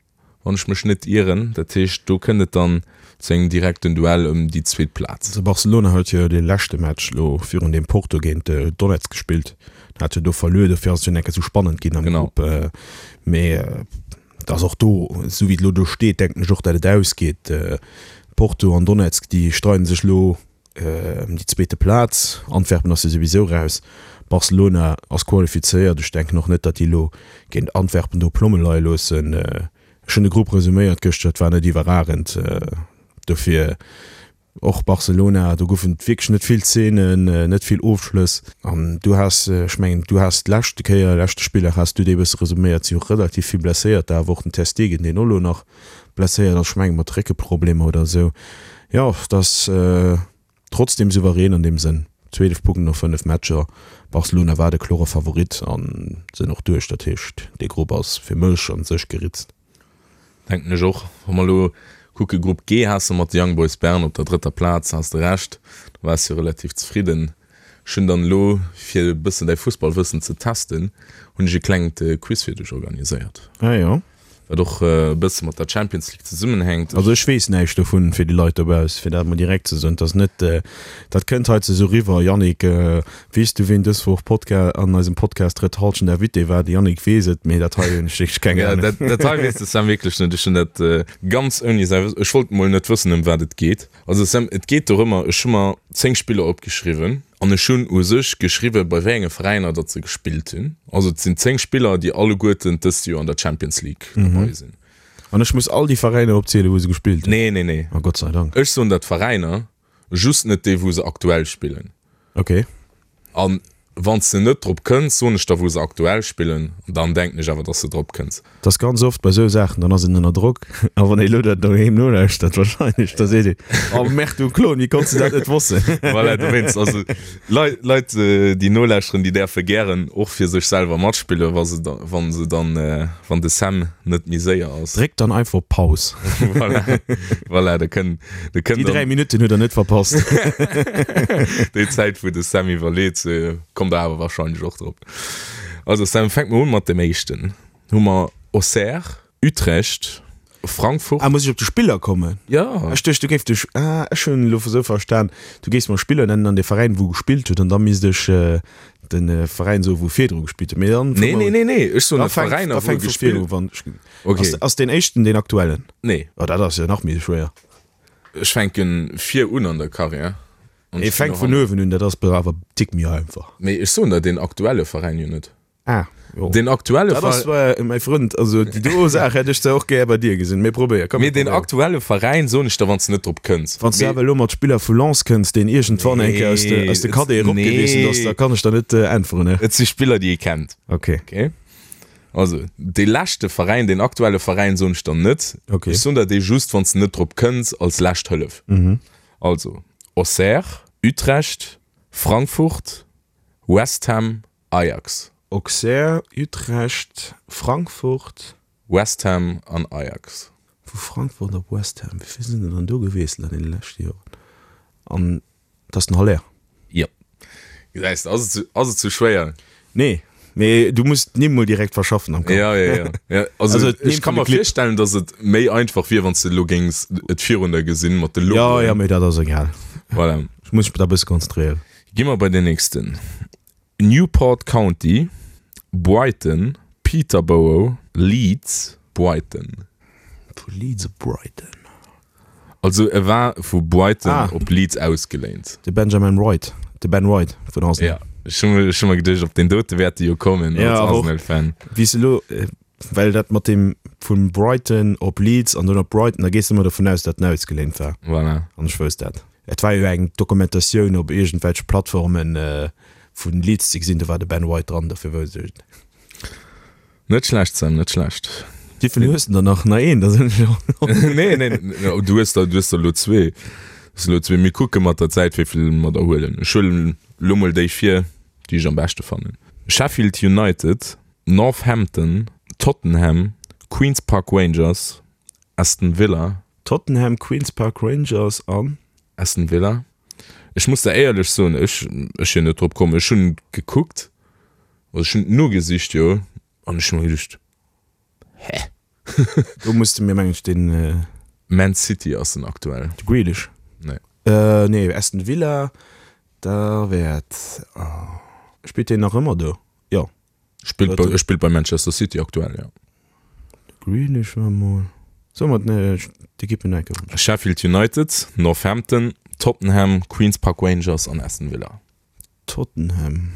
wann ech mech net ieren. Dat heescht, do kënnt et dann zu engem direkten Duell ëm déi zweet Plaz. Also Barcelona huet jo dee leschte Match elo virun deem Porto géint Donetsk gespillt, hat jo do verluer, dofir ass et jo enke sou spannend ginn am Grupp. Mee et ass och do, esou wéi et elo do steet, denken ech och, datt et ausgeet. Porto an Donetsk, déi streiden sech elo Ëm déi zweete Plaz. Antwerpen ass jo souwisou raus. Barcelona ass qualifizéiert. Ech denken och net, datt déi elo géint Antwerpen do Plomme leie loossen. Ech hunn de Grupp resuméiert gëschter, et war net iwwerragend. Dofir och Barcelona, do goufen et wierklech net vill Zeenen, net vill Ofschlëss. An du has, ech mengen, du has d'leschte Kéier, leschte Spilldag has du dee bësse resuméiert, si hu relativ vill Blesséierter, awer och den Ter Stegen, deen och elo nach blesséiert ass, ech mengen mat Réckeproblemer oder esou. Jo, et ass trotzdem souverän an deem Sënn. 12 Punkten no 5 Matcher. Barcelona war de klore Favorit an sinn och duerch. Dat heescht, dee Grupp ass fir mech an sech geritzt. Denken ech och. Wa mer elo kucke Grupp G, has de mat de Young Boys Bern op der drëtter Plaz, has de Recht, do waars jo relativ zefridden. Ech hunn dann elo, fir e bëssen däi Fussballwëssen ze testen, hunn ech e klengt Quiz fir dech organiséiert. Ah jo. Wat och e bësse mat der Champions League zesummenhänkt. Also ech weess näischt dovun, fir déi Leit dobauss, fir dat mol direkt ze soen. Et ass net, dat kënnt hei ze esou riwwer, Yannick, weess du ween dës Woch Podca an eisem Podcast Drëtt Halschent Invité war? De Yannick weess et, mee dat hei hunn ech wierklech keng Ahnung. Ja, dat, dat hei weess de Sam wierklech net. Ech hunn dat ganz ouni säi Wëssen, ech wollt mol net wëssen ëm wat et geet. Also Sam, et geet dorëmmer, ech hu mer 10 Spiller opgeschriwwen an ech hunn u sech geschriwwen, bei wéi enge Veräiner datt se gespillt hunn. Also et sinn 10 Spiller, déi alleguerten dëst Joer an der Champions League derbei sinn. An ech muss all déi Veräiner opzielen, wou se gespillt hunn? Nee, nee, nee. Oh Gott sei Dank. Ech soen der d'Veräiner, just net déi, wou se aktuell spillen. Ok. An wann s de net drop kënns, soen ech der, wou se aktuell spillen, an dann denken ech awer, dass de drop kënns. Et ass ganz oft bei sou Saachen, dann ass een ënner Drock, a wann ee elo dat doheem nolauschtert, wahrscheinlech, da seet een, Oh Merde, du Klon, wéi konns de dat net wossen? Voilà, dowéinst, also Leit, Leit, déi nolauschteren, déi däerfe gären och fir sech selwer matspillen, wa se da, wa se dann, wann de Sam net méi séier ass. Dréckt dann einfach op Paus. Voilà, voilà, da kënn, da kënn Déi 3 Minutten hutt der net verpasst. Déi Zäit, wou de Sam iwwerleet, kommt der awer wahrscheinlech och drop. Also Sam, fänke mer un mat dem éischten. Hu mer Auxerre, Utrecht, Frankfurt. Ah, muss ech op de Spiller kommen? Jo. Ech duecht, du géif dech, ah, ech hunn elo esou verstan, du géifs mer Spiller nennen an de Veräin, wou gespillt huet, an da misst ech de Veräin soen, wou virdru gespillt huet. Mee dann. Nee, nee, nee, nee, ech soen de Veräiner, wou gespillt huet. Okay. Ass, ass deen éischten deen aktuellen? Nee. Oh, dat ass jo nach méi schwéier. Ech fänke vir un an der Karriär. An ech fänk vun uewen un, dat ass awer e Tick méi einfach. Mee ech soen der deen aktuelle Veräin jo net. Ah, jo. Den aktuelle Dat ass zwar, mäi Frënd, also déi do Saach hätt ech zwar och gär bei dir gesinn, mee probéier, komm. Mee den aktuelle Veräin soen ech der, wann s de net drop kënns. Wann s du awer elo mat Spiller vu Lens kënns, deen iergendwann eng Kéier aus de, aus de Cadete eropgewiesselt ass, da kann ech der net äntweren, ne? Et si Spiller, déi ee kennt. Okay. Okay. Also, dee leschte Veräin, deen aktuelle Veräin soen ech der net. Okay. Ech soen der dee just, wann s de net drop kënns, als lescht Hëllef. Also, Auxerre, Utrecht, Frankfurt, West Ham, Ajax. Auxerre, Utrecht, Frankfurt. West Ham an Ajax. Vu Frankfurt op West Ham, wéi vill sinn der dann do gewiesselt an deene leschte Joren? An et ass den Haller. Jo. Gesäis de, ass et, ass et sou schwéier? Nee, mee du muss d'Nimm mol direkt verschaffen am Kapp. Ja, ja, ja. ja also, also ech ka mer virstellen, datt et méi einfach wier, wann s de elo géings et virun der gesinn mat de Logoen. Ja, ja, mee dat ass egal. Voilà. Ech muss mech da e bësse konzentréieren. Gi mer bei den nächsten. Newport County, Brighton, Peterborough, Leeds, Brighton. Vu Leeds op Brighton. Also e war vu Brighton ah. op Leeds ausgeléint. De Benjamin Wright, de Ben Wright vun Arsenal. Ja, ech hu ech hu mer geduecht, op deen dote wäert de jo kommen ja, als Arsenal-Fan. Wéi se elo, äh, well dat mat dem vun Brighton op Leeds an dann op Brighton, da gees de ëmmer dovun aus, datt en ausgeléint war. Voilà. An ech wousst dat. Et war jo eng Dokumentatioun op iergendwelche Plattformen äh, vun Leeds ze gesinn, do war de Ben White dran, dofir wousst ech et. Net schlecht Sam, net schlecht. Wéivill hues de der nach? Nach een? Da sinn ech jo. Nee, nee, du hues der, du hues der elo zwee. Du hues elo zwee. Mir kucke mat der Zäit, wéivill mer der huelen. Ech huelen elo mol déi vir, déi ech am beschte fannen. Sheffield United, Northampton, Tottenham, Queens Park Rangers, Aston Villa. Tottenham, Queens Park Rangers an? Aston Villa. Ech muss der éierlech soen, ech, ech sinn net drop komm. Ech hunn gekuckt, also ech hunn nogesicht, jo, an ech hu mer geduecht, hä? Do muss de mir, mengen ech, den. Man City ass en aktuell. De Grealish? Nee. Nee, Aston Villa, da wäert, oh, spillt deen nach ëmmer do? Jo. Spillt bei, spillt bei Manchester City aktuell, ja. Grealish war mol. So mat ne d'Ekippen enke. Sheffield United, Northampton, Tottenham, Queens Park Rangers an Aston Villa. Tottenham.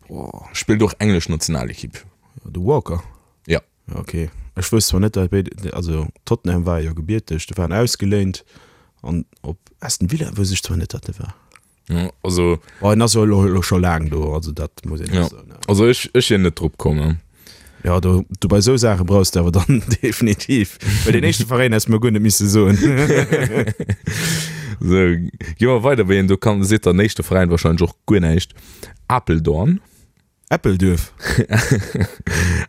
Boah. Spillt och englesch Nationalekipp. De Walker? Ja. Ok. Ech wousst zwar net dat béid, also Tottenham war jo gebierteg, de waren ausgeléint an op Aston Villa wousst ech zwar net dat de war. Ja, also oh, en ass jo elo, elo scho laang do, also dat muss een ja. soen. Also ech, ech wier net drop komm. Ne? Ja, do, du bei sou Saache brauchs du awer dann definitiv. Well den éischte Veräin häss mir guer net misse soen. So, gi mer weider, wéi een do kann, seet der éischte Veräin wahrscheinlech och guer näischt. Apeldoorn. Äppelduerf.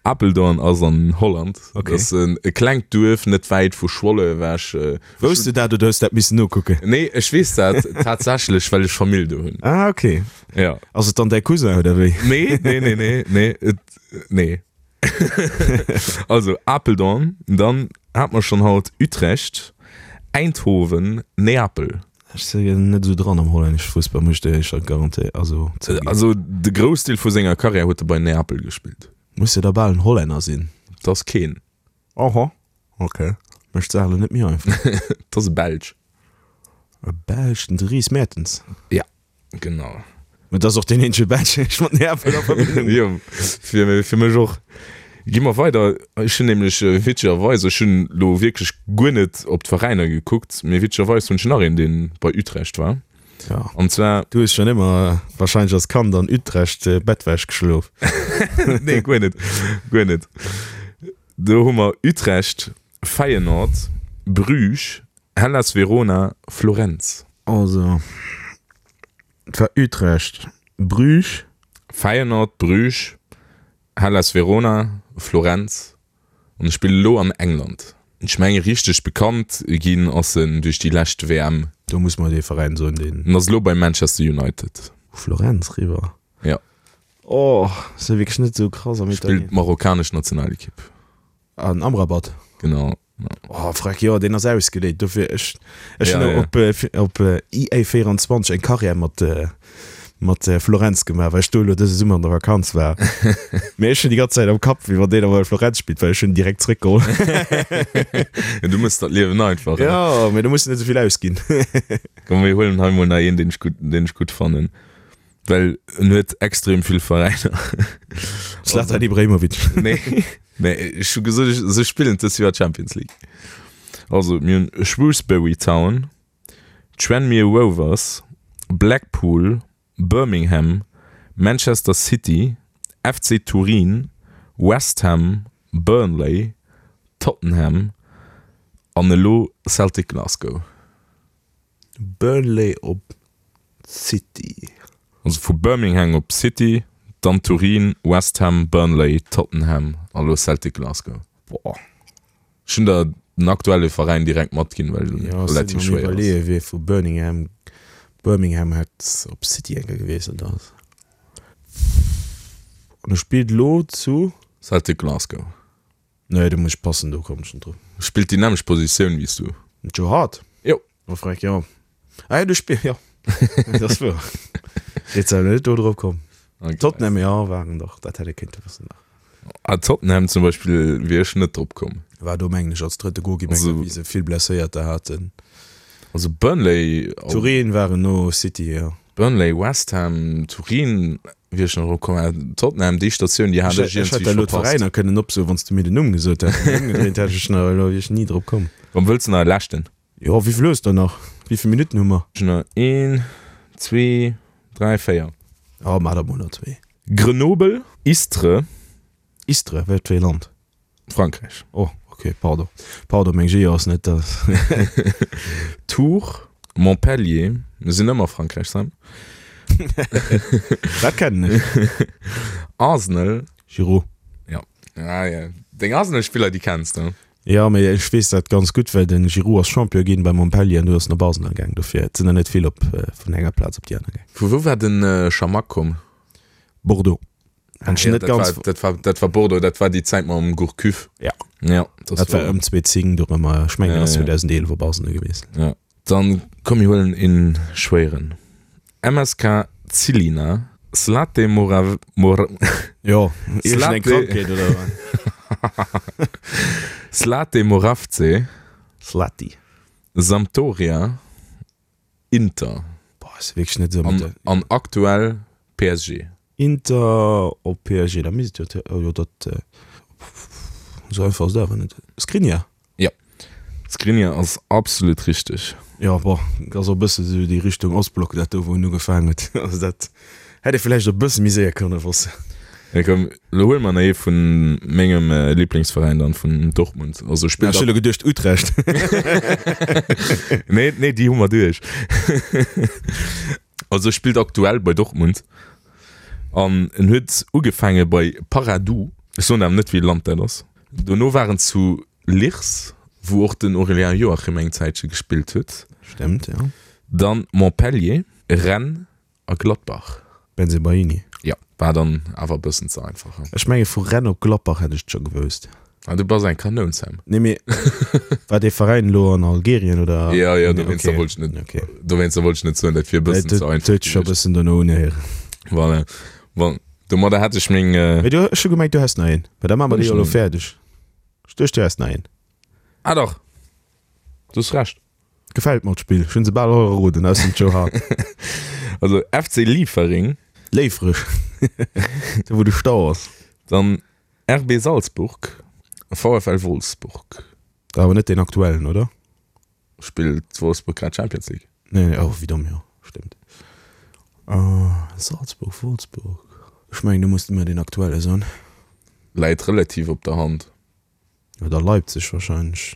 Apeldoorn ass an Holland. Okay. Dat ass e klengt Duerf net wäit vu Schwolle ewech. Wousst du dat oder hues dat missen nokucken? Nee, ech weess dat tatsächlech, well ech Famill do hunn. Ah, okay. Ja. Ass et dann däi Cousin oder wéi? Nee, nee, nee, nee, nee, et, nee. Also Apeldoorn, dann hat mer schonn haut Utrecht, Eindhoven, Neapel. Ech sinn net esou dran am hollännesche Fussball, muss ech dir éischter garantéieren, also zouginn. Also de Groussdeel vu senger Karriär huet e bei Neapel gespillt. Muss jo da bal en Hollänner sinn. Et ass keen. Oho, ok. Mécht d'Saach elo net méi einfach. Et ass e Belsch. E Belsch, den Dries Mertens. Ja. Genau. Mä et ass och deen eenzege Belsch, deen ech mat Neapel a Verbindung Jo, fir, fir mech och. Gi mer weider. Ech hunn nämlech witzegerweis, ech hunn elo wierklech guer net op d'Veräiner gekuckt, mee witzegerweis hunn ech nach een, dee bei Utrecht war. Ja. An zwar. Du hues schonn ëmmer warscheinlech als Kand an Utrecht Bettwäsch geschlof. Nee, guer net, guer net. Do hu mer Utrecht, Feyenoord, Bruges, Hellas Verona, Florenz. Also, et war Utrecht, Bruges. Feyenoord, Bruges, Hellas Verona, Florenz an e spillt elo an England. Ech menge richteg bekannt ginn ass en duerch déi lescht WM. Do muss mer dee Veräin soen, deen. En ass elo bei Manchester United. Florenz riwwer. Ja. Oh, ass jo wierklech net esou krass am Italien. Spillt d'marokkanesch Nationalekipp. An Amrabat. Genau. Oh freck, jo deen ass ausgeléint dofir. Ech ech hunn ja, op ja. op EA 24 eng Karriär mat mat Florenz gemaach, well ech do elo dëse Summer an der Vakanz war. Mee ech hunn déi ganz Zäit am Kapp, wéi wann deen awer bei Florenz spillt, well ech hunn en direkt zréckgeholl. Ja, du mëss dat Liewen einfach. Ja, mee du muss net esouvill ausginn. Komm, mir huelen hei mol nach een, deen ech gutt, deen ech gutt fannen. Well en huet extrem vill Veräiner. Zlatan Ibrahimovic. Nee, nee, ech hu gesot, se spillen dës Joer Champions League. Also mir hunn Shrewsbury Town, Tranmere Rovers, Blackpool, Birmingham, Manchester City, FC Turin, West Ham, Burnley, Tottenham an elo Celtic Glasgow. Burnley op City. Also vu Birmingham op City, dann Turin, West Ham, Burnley, Tottenham a lo Celtic Glasgow. Boah. Ech hunn der den aktuelle Veräin direkt matginn, well en Ja, ech relativ sinn am schwéier ass. iwwerleeë wie vu Birmingham, Birmingham hätt op City eng Kéier gewiesselt ass. An e spillt elo zu? Celtic Glasgow. Nee, do muss ech passen, do komm ech net drop. Spillt déi nämmlecht Positioun wéi s du. Den Joe Hart? Jo. Oh freck, jo. Ah jo, du spill, jo. Dat ass wuer. Jetzt awer net do drop komm. Okay. Tottenham, jo, waren dach, dat hätt ee kéinte wëssen nach. Ah, Tottenham zum Beispill wier ech net drop komm. War do mengen ech als drëtte Goalkeeper, Also- wéi se vill Blesséierter haten. Also Burnley, Turin waren no City, jo. Burnley, West Ham, Turin wier ech nach drop komm, awer Tottenham, déi Statioun, déi hat Ech ech hätt iergendwéi der elo verpasst. d'Veräiner kënnen opsoen, wann s du mir den Numm gesot häss. Ëmgedréint hätt ech nach elo, wier ech ni drop komm. Komm, wëlls de nach e leschten? Jo, wéi vill hues der nach? Wéi vill Minutten hu mer? Ech hunn nach een, zwee, dräi, véier. Jo, maach der mol nach zwee. Grenoble, Istres. Istres, wat fir ee Land? Frankräich. Oh, ok, pardon. Pardon, meng Geo ass net dat. Tours, Montpellier, mir sinn ëmmer Frankräich, Sam. Dat kennen ech. Arsenal. Giroud. Ja. Ah, ja. Deng Arsenal-Spiller, déi kenns de. Jo, mee ech weess dat ganz gutt, well den Giroud ass Champion ginn bei Montpellier an du ass en op Arsenal gaang. Dofir, et sinn der net vill op vun enger Plaz op déi aner gaang. Vu wou war den Chamakh komm? Bordeaux. Wann ech Ja, net dat ganz. war, dat war, dat war Bordeaux, dat war déi Zäit mam Gourcuff. Ja. Ja, das Dat war ëm 2010 dorëmmer. Ech mengen, Ja, ass ja. 2011 op Arsenal gewiesselt. Ja. Dann komm mir huelen een schwéieren. MSK Zilina, Zlate Morav, Mor, Jo, iergendeng Zlate, Krankheet oder wat? Zlate Moravce, Zlati. Sampdoria, Inter. Boah, ass wierklech net esou mat An, der. an aktuell PSG. Inter op PSG, da misst et jo, oh jo, dat, esou einfach ass et awer net. Skriniar? Jo, Skriniar ass absolut richteg. Jo, bon, ass och e bësse sou déi Richtung Ostblock, dat do, wou en ugefaangen huet. Also dat hätt ee vläicht och e bësse méi séier kënne wossen. Ja, komm, lo huele mer nach ee vun mengem Lieblingsveräin dann, vun Dortmund. Also spillt. Ech hu lo geduecht Utrecht. Nee, nee, déi hu mer duerch. Also spillt aktuell bei Dortmund an en huet ugefaange bei Paradou. Ech soen awer net, wéi e Land dat ass. Dono war en zu Lierse, wou och den Aurélien Joachim eng Zäitche gespillt huet. Stemmt, jo. Dann Montpellier, Rennes A Gladbach. Bensebaini. Jo, war dann awer e bëssen ze einfach, he? Ech menge vu Rennes op Gladbach hätt ech et scho gewousst. Ah, du bass eng Kanoun, Sam. Nee, mee war dee Veräin elo an Algerien oder? Jo, jo, dowéinster wollt ech net, Okay. dowéinster wollt ech net soen, dat wier e bëssen ze einfach Et huet scho e gewiescht. bëssen dono unhéieren. Voilà. Bon, domadder hätt ech meng. Mee du, ech hu gemengt, du häss nach een. Mä da maache mer Hunn déi ech jo elo nach een? fäerdeg. Ech duecht, du häss nach een. Ah dach, du hues Recht. Gefällt mer d'Spill, ech hunn se bal all erroden, ausser den Joe Hart. Also FC Liefering. Léifereg, do wou de Stau ass. Dann RB Salzburg, VfL Wolfsburg. Awer net deen aktuellen, oder? Spillt Wolfsburg grad Champions League? Nee, nee, oh wéi domm, jo stémmt. Salzburg, Wolfsburg, ech mengen do muss de mer deen aktuelle soen. Läit relativ op der Hand. Oder Leipzig wahrscheinlech.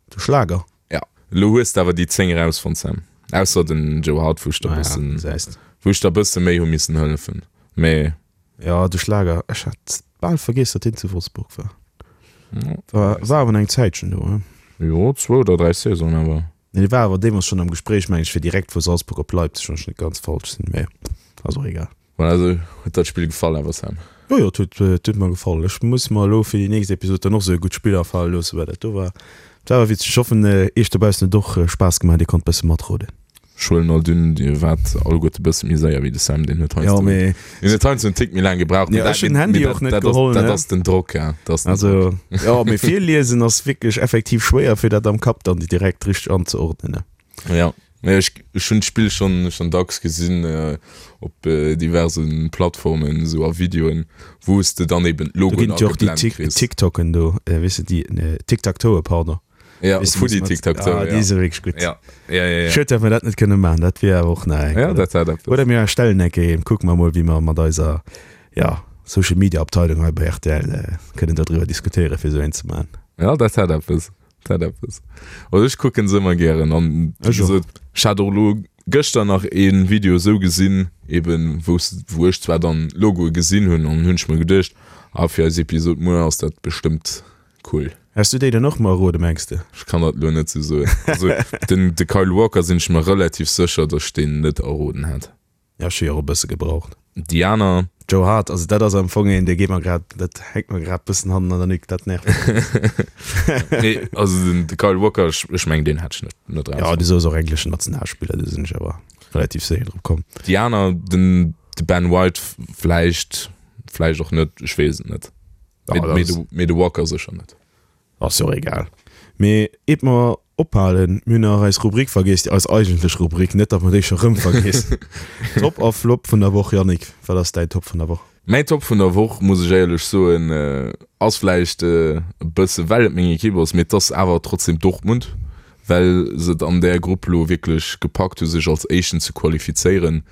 De Schlager. Ja, elo hues de awer déi 10 erausfonnt, Sam. Ausser den Joe Hart, wou ech der Ah ja, bëssen, gesäis de. wou ech der bësse méi hu missen hëllefen. Mee. Ja, de Schlager. Ech hat bal vergiess, datt deen zu Wolfsburg war. Ja. War, war awer eng Zäitchen do, he? Jo, zwou oder 3 Saisonen awer. Nee, dee war awer deemools schonn am Gespréich, meng ech, fir direkt vu Salzburg op Leipzig, wann ech net ganz falsch sinn. Mee ass och egal. Voilà, also huet der d'Spill gefall awer Sam? Jo jo, et huet et huet mer gefall. Ech muss mer elo fir déi nächst Episod dann och sou e gutt Spill afale loossen, well dat do war dat war awer witzeg. Ech hoffen iech dobaussen huet och Spaass gemaach, dir konnt bësse matroden. Ech huelen alt un, dir waart alleguerte bësse méi séier wéi de Sam, deen huet Jo heiansdo mee deen huet heiansdo en Tick méi laang gebraucht, mee Jo dat ech hunn den Handy mee och dat net dat ass geholl dat ne. ass den Drock, ja, dat ass den Also Drock. jo, mee virliesen ass wierklech effektiv schwéier fir dat am Kapp dann direkt richteg anzeordnen ne. Ja. Nee, ech, ech hunn d'Spill schonn schonn dacks gesinn op diverse Plattformen, esou a Videoen, wou s de dann eben Do d'Logoen ginn et jo och déi ageblennt Tik kriss. TikToken do, weess de, déi Tic-Tac-Toe, pardon. Ja, Weess de, Foodie mat, Tic-Tac-Toe, ah, ja. déi si wierklech gutt. Ja, ja, ja, ja. Schued, datt mer dat net kënne maachen, dat wier awer och nach eng, Ja, oder? dat hätt eppes. Oder mir erstellen eng Kéier een, kucke mer mol, wéi mer mat eiser, ja, Social Media Abteilung hei bei rtl kënnen dodriwwer diskutéieren, fir esou een ze maachen. Ja, dat hätt eppes. Dat eppes. Also ech kucken se ëmmer gären an wéi Ech och. gesot, ech hat och elo gëschter nach ee Video esou gesinn, eben wou s wou ech zwar dann Logoe gesinn hunn an hunn ech mer geduecht, ah fir eis Episod muer ass dat bestëmmt cool. Häss du déi dann och mer errode mengs de? Ech kann dat elo net sou soen. Also den de Kyle Walker sinn ech mer relativ sécher, datt ech deen net erroden hätt. Ja, ech hu jo och e bësse gebraucht. Déi aner. Joe Hart, also dat ass am Fong een, dee geet mer grad, dat hänkt mer grad bëssen hannen an der Nuque, dat nervt mech. Nee, also den de Kyle Walker, ech, ech mengen deen hätt ech net, net Ja, erausfonnt. du soos och engleschen Nationalspiller, do sinn ech awer relativ séier drop komm. Déi aner, den de Ben White vläicht, vläicht och net, ech weess et net. Ja, Mee, dat mee ass. de, mee de Walker sécher net. Ass jo och egal. Mee eet mer ophalen, mir hunn nach eis Rubrik vergiess, déi eis eigentlech Rubrik, net datt mer déi scho rëm vergiessen. Top a Flop vun der Woch, Yannick, wat ass däin Top vun der Woch? Mäin Top vun der Woch, muss ech éierlech soen, ass vläicht e bësse well et meng Ekipp ass, mee et ass awer trotzdem Dortmund, well se et an där Grupp elo wierklech gepackt hu sech als Éischten ze qualifizéieren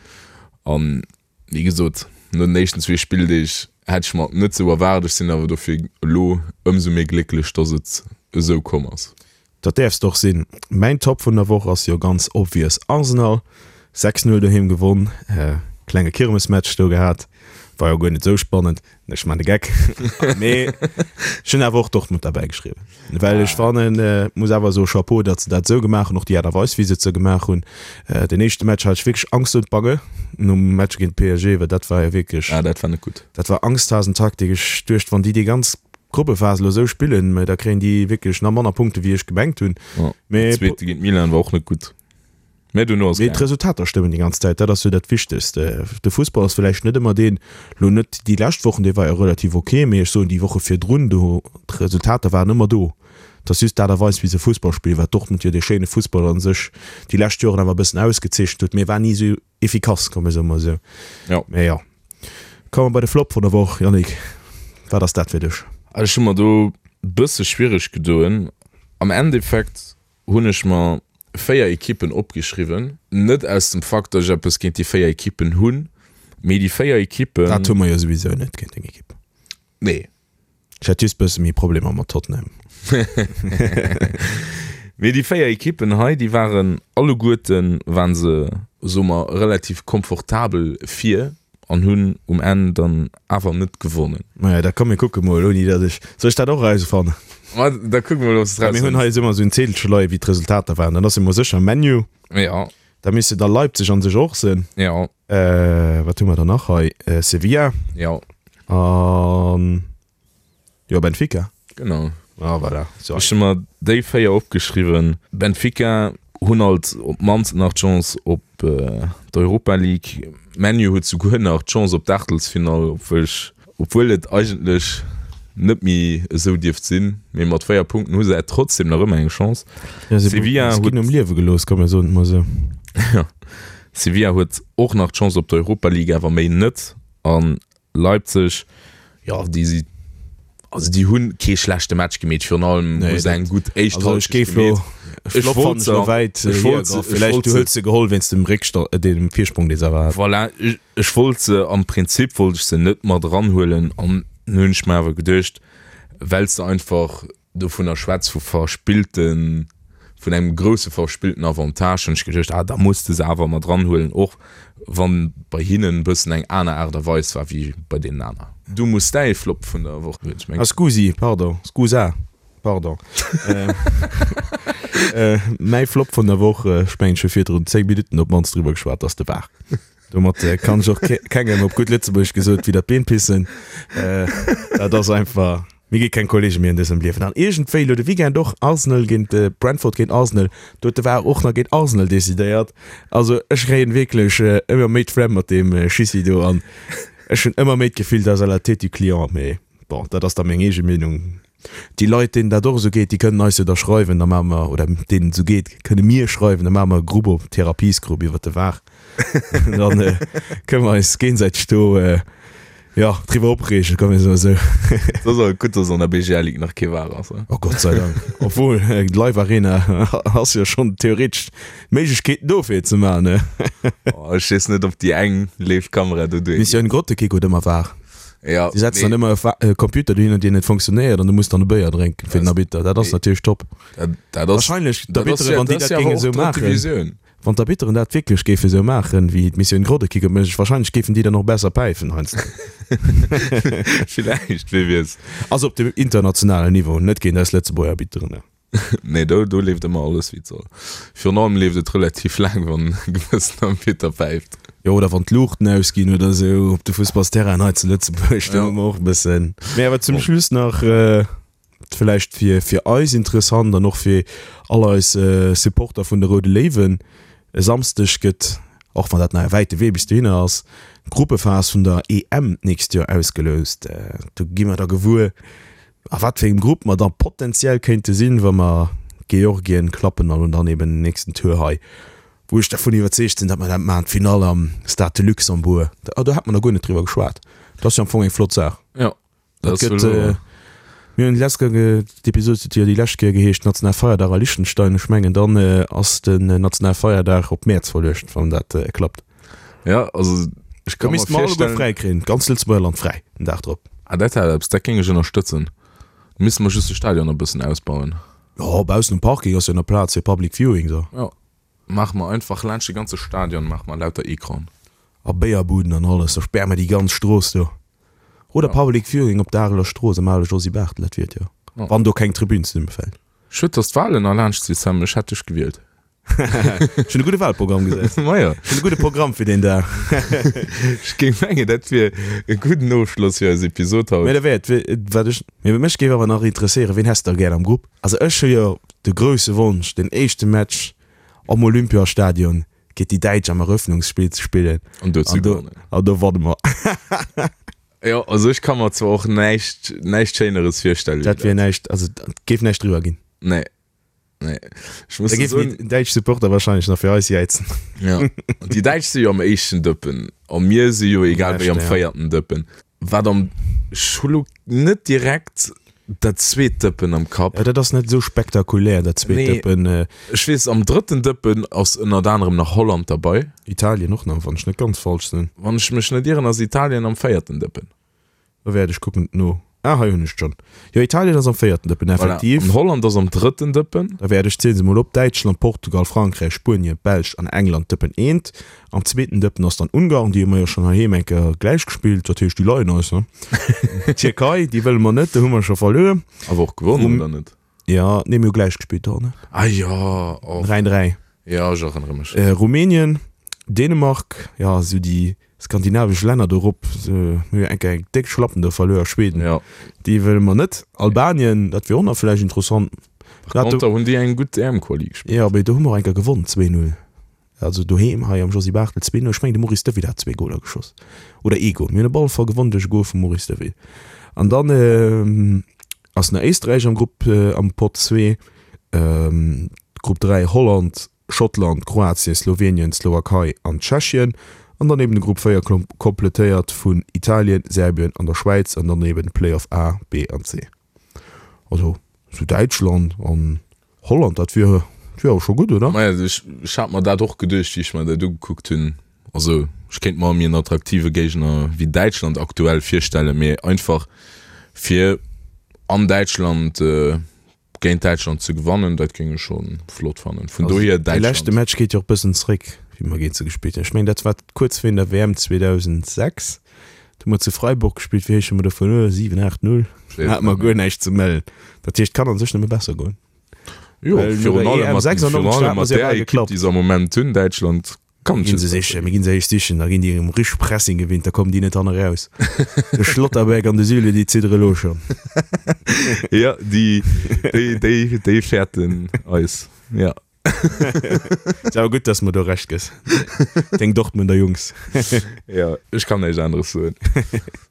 an Wéi gesot, no den éischten zwee Spilldeeg hätt ech mer et net sou erwaart. Ech sinn awer dofir elo ëmsou méi glécklech, dass et esou komm ass. Dat däerfs de och sinn. Mäin Top vun der Woch ass jo ganz obvious Arsenal. 6, 0 doheem gewonn, klenge Kirmesmatch do gehat, war jo guer net sou spannend. Ech man de Geck. Mee ech hunn awer och Dortmund derbäi geschriwwen. Well ech fannen, muss awer soe Chapeau, datt se dat esou gemaach hunn, och déi Aart a Weis, wéi se et sou gemaach hunn. Den éischte Match hat ech wierklech Angst und Bange nom Match géint PSG, well dat war jo wierklech. Ah, dat war net gutt. Dat war Angsthasentaktik. Ech duecht, wann déi déi ganz Gruppephas elo esou spillen, da kréien déi wierklech nach manner Punkte wéi ech gemengt hunn. Mee. Den zweete géint Milan war och net gutt. Mä duerno ass Mee d'Resultater stëmmen déi ganz Zäit, dat ass jo dat Wichtegst. De Fussball ass villäicht net ëmmer deen, lo net déi lescht Wochen, dee war jo relativ ok, mee ech soen déi Woche virdrun, do d'Resultater waren ëmmer do. Et ass just d'Aart a Weis wéi se Fussball spillen, wat Dortmund jo dee schéine Fussball a sech déi lescht Joren awer e bëssen ausgezeechent huet, mee war ni esou efficace, komm mir soe mol esou. Jo. Mee jo. Komme mer bei de Flop vun der Woch, Yannick, wat ass dat fir dech? Ech hu mer do e bësse schwiereg gedoen. Am Endeffekt hunn ech mer 4 Ekippen opgeschriwwen, net aus dem Fakt, datt ech eppes géint déi 4 Ekippen hunn, mee déi 4 Ekippen. Dat hu mer jo souwisou net géint deng Ekipp. Nee. Ech hätt just bësse méi Problemer mat Tottenham. Mee déi 4 Ekippen hei, déi waren alleguerten, waren se, soe mer, relativ komfortabel vir. An hunn um Enn dann awer net gewonnen. Maja, da komm mir kucke mol, ouni datt ech. Soll ech dat och erausfannen? Ma da kucke mol, ob s de et erausfënns. Mir hunn hei ëmmer esou en Zedelche leie wéi d'Resultater waren. Dann ass jo mol sécher ManU. Jo. Da misste da Leipzig an sech och sinn. Jo. Wat hu mer dann nach hei? Sevilla. Jo. An. Jo, Benfica. Genau. Ah, voilà. So. Ech hu mer déi 4 opgeschriwwen. Benfica hunn alt op d'mannst nach d'Chance op d'Europa League. ManU huet souguer nach d'Chance op d'Aachtelsfinall, obwuel ech, obwuel et eigentlech net méi esou dierft sinn. Mee mat 4 Punkten hu se trotzdem nach ëmmer eng Chance. Ja, se Sevilla huet ginn um Liewe gelooss, komm mir soen et mol esou. Ja. Sevilla huet och nach d'Chance op d'Europa League, awer méi net. An Leipzig, jo, déi si, also déi hunn kee schlechte Match gemeet, virun allem hu se eng gutt éischt Halschent gemeet. Ech wollt se, ech wollt se, ech wollt se, se geholl wéinst dem Réckstand, dem Virsprong, dee se awer haten. Voilà, ech wollt se, am Prinzip wollt ech se net mat eranhuelen an hunn ech mer awer geduecht, well s de einfach dovunner schwätz vu verspillten, vun engem grousse verspillten Avantage, hunn ech geduecht, ah da muss de se awer mat eranhuelen, och wann bei hinnen e bëssen eng aner Aart a Weis war wéi bei deenen aner. Du muss däi Flop vun der Woch huelen, ech mengen. Ah scusi, pardon, scusa, pardon. Mäi Flop vun der Woch, ech mengen ech hu virdrun 10 Minutten op d'mannst driwwer geschwat, ass de VAR. Domat kann ech och kengem op gutt Lëtzebuergesch gesot widder d'Been pissen. Dat ass einfach. Mir gi keng Kollege méi an dësem Liewen. An iergendwéi elo de Weekend och, Arsenal géint Brentford géint Arsenal, do huet de VAR och nach géint Arsenal decidéiert. Also ech kréien wierklech ëmmer méi d'Flemm mat deem Schissi do an ech hunn ëmmer méi d'Gefill, dat ass à la tête du client. Mee bon, dat ass da meng eege Meenung. Déi Leit, deenen dat och esou geet, déi kënnen eis jo da schreiwen, da maache mer, oder deenen et esou geet, kënne mir schreiwen, da maache mer e Grupp op, Therapiesgrupp iwwert de VAR. Dann kënne mer eis géinsäiteg do Jo, driwwer opreegen, komm mir soen esou. Et ass awer gutt, dass an der BGL Ligue nach kee VAR ass. Oh Gott sei Dank. Obwuel, d'Live Arena ass jo schonn theoretesch d'Méiglechkeeten do fir et ze maachen, ne? Oh, ech weess net, ob déi eng Live-Kamera do duergeet. Mission Grottekick huet ëmmer VAR. Ja, Si setzen dann ëmmer e Computer dohinner, deen net funktionéiert an du muss dann e Béier drénken fir den Arbitter. Dat ass natierlech top. Dat, dat ass, Wahrscheinlech d'Arbitteren, wann déi dat géinge esou maachen. Wann d'Arbitteren dat wierklech géife sou maachen, wéi d'Missioun Groddekick et mécht, wahrscheinlech géifen déi dann och besser päifen heiansdo. Villäicht, wee weess. Also op dem internationalen Niveau, net géint eis Lëtzebuerger Arbitteren. Nee, do, do leeft ëmmer alles wéi et soll. Virun allem leeft et relativ laang, wann e gewëssen Arbitter päift. Jo, oder wann d'Luuchten ausginn oder sou op de Fussballsterrainen hei zu Lëtzebuerg, do hu mer och e bëssen. Mee awer zum Schluss nach. Vläicht fir fir eis interessant an och fir all eis Supporter vun de Roude Léiwen, E Samsdeg gëtt, och wann dat nach e wäite Wee bis dohinner ass, d'Gruppephas vun der EM d'nächst Joer ausgeloust. Do gi mer da gewuer. A wat fir engem Grupp mer da potenziell kéinte sinn, wa mer Georgien klappen an dann eben den nächsten Tour hei, wou ech dervun iwwerzeegt sinn, datt mer dat maachen, d'Finall am Stade de Luxembourg. Ah, do hat mer nach guer net driwwer geschwat. Dat ass jo am Fong eng flott Saach. Jo, dat gëtt. Mir hunn déi lescht Kéier, d'Episod huet jo déi lescht Kéier geheescht National Feierdag a Liechtenstein. Ech mengen, dann ass den National Feierdag op Mäerz verluecht, wann dat klappt. Ja, also ech kann mir vorstellen fräi kréien, ganz Lëtzebuerger Land fräi den Dag drop. Ah, dat hätt eppes, dat géing ech ënnerstëtzen. Misste mer just de Stadion e bëssen ausbauen. Jo, baussen um Parking ass jo nach Plaz fir Public Viewing so. Jo, maache mer einfach laanscht de ganze Stadion maache mer lauter Ecranen. A Béierbuden an alles, da späre mer déi ganz Strooss do. Oder Public Viewing op der Areler Strooss am ale Josy Barthel, dat wier et jo, wann do keng Tribün zesummefält. Schued, dass d'Wahlen erlaanscht si, Sam, ech hätt dech gewielt. Ech hunn e gudde Wahlprogramm gesäit. Majo. Ech hunn e gudde Programm fir deen Dag. Ech géing mengen, dat wier e gudden Ofschloss fir eis Episod haut. Mä da wär et, wat ech, mä mech géif awer nach interesséieren, ween häss de da gär am Grupp? Also ech hu jo de grousse Wonsch, den éischte Match am Olympiastadion géint déi Däitsch am Eröffnungsspill ze spillen. An do ze gewannen. An do wanne mer. Jo, also ech ka mer zwar och näischt, näischt Schéineres virstellen wéi dat. Dat wier näischt, also et géif näischt driwwer ginn. Nee. Nee. Ech muss Da géifen soen, déi däitsch Supporter wahrscheinlech nach fir eis jäizen. Ja. Déi Däitsch si jo am éischten Dëppen a mir si jo egal wéi am véierten Dëppen. Wat am, ech hu lo net direkt dat zweet Dëppen am Kapp. Ja, dat ass net esou spektakulär, dat zweet Nee. Dëppen. Ech weess, am drëtten Dëppen ass ënnert anerem nach Holland derbei. Italien och nach, wann ech net ganz falsch sinn. Wann ech mech net ieren, ass Italien am véierten Dëppen. Da wäert ech kucken et no. Ah, hei hunn ech et schonn. Jo, Italien ass am véierten Dëppen, effektiv. Voilà. An Holland ass am drëtten Dëppen. Da wäert ech, zielen se mol op, Däitschland, Portugal, Frankräich, Spuenien, Belsch an England, Dëppen eent. Am zweeten Dëppen ass dann Ungarn, déi hu mer jo schonn heiheem eng Kéier gläich gespillt, dat heescht, déi leien eis, ne? Tierkei, déi wëlle mer net, do hu mer scho verluer. Awer och gewonnen, oder net? Jo, nee, mir hu gläich gespillt do, ne? Ah jo, oh. 3, 3. Jo, ech erënnere mech. Rumänien, Dänemark, jo, esou déi Skandinavesch Länner do rop, hu jo eng Kéier eng déck Schlappen do verluer. Schweden, Ja. déi wëlle mer net. Albanien, dat wier och nach vläicht interessant. Par conter hunn déi eng gutt EM-Quali gespillt. Jo, mee do hu mer och eng Kéier gewonn, 2-0. Also doheem hei am Josy Barthel 2-0. Ech mengen de Maurice Deville hat zwee Goler geschoss. Oder ee Gol. Mir hunn op alle Fall gewonn duerch e Gol vum Maurice Deville. An dann ass nach Éisträich am Grupp, am Pott 2. Grupp 3, Holland, Schottland, Kroatien, Slowenien, Slowakei an Tschechien an dann eben de Grupp 4 kompletéiert vun Italien, Serbien an der Schwäiz an dann eben Playoff A, B an C. Also sou Däitschland an Holland, dat wier wier awer scho gutt, oder? Maja, ech ech hat mer dat och geduecht, wéi ech mer dat ugekuckt hunn. Also ech kéint mer méi en attraktive Géigner wéi Däitschland aktuell virstellen, mee einfach fir an Däitschland Géint Däitschland ze gewannen, dat géing ech scho flott fannen. Vun dohier Däitschland. De leschte Match geet jo och bëssen zréck, wéi mer géint se gespillt hunn. Ech mengen, dat war kuerz virun der WM 2006. Do hu mer zu Freiburg gespillt. Wéi héich hu mer do verluer? 7, 8, 0? Do hate mer guer näischt ze mellen. Dat heescht, et kann a sech nëmme besser goen. Jo, virun allem mat, virun allem mat där Ekipp, déi se am Moment hunn, Däitschland. Kann Ginn se sichen, mir ginn se éischt sichen, da ginn déi um richteg Pressing gewinnt, da kommen déi net hanne raus. De Schlotterbeck an de Süle, déi ziddere lo schonn. Ja, déi, déi, déi, déi fäerten eis, ja. Ass awer gutt, dass mer do Recht gëss, deng Dortmunder Jungs. Ja, ech kann näischt aneres soen.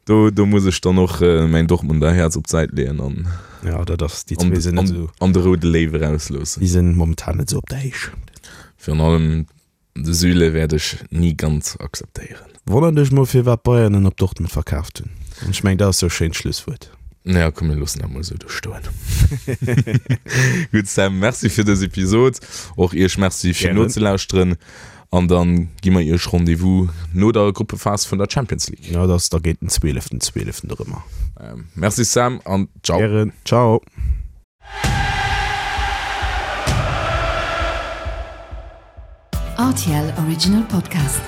Do, do muss ech dann och mäin Dortmunder Häerz op d'Säit leeën an. Ja, dat ass, déi zwee sinn net esou. An de roude Léiw erausloossen. Déi sinn momentan net esou op der Héicht. Virun allem De Süle wäert ech ni ganz akzeptéieren. Wonnert dech mol firwat Bayern en op Dortmund verkaaft hunn. An ech mengen dat ass sou e schéint Schlusswuert. Ja komm mir loossen dat mol esou do stoen. Gutt Sam, Merci fir dës Episod. Och iech Merci fir nozelauschteren an dann gi mer iech Rendez-vous no der Gruppephas vun der Champions League. Ja dat ass da géint den zwieleften zwieleften erëmmer. Merci Sam an ciao. Gären, ciao. RTL Original Podcast.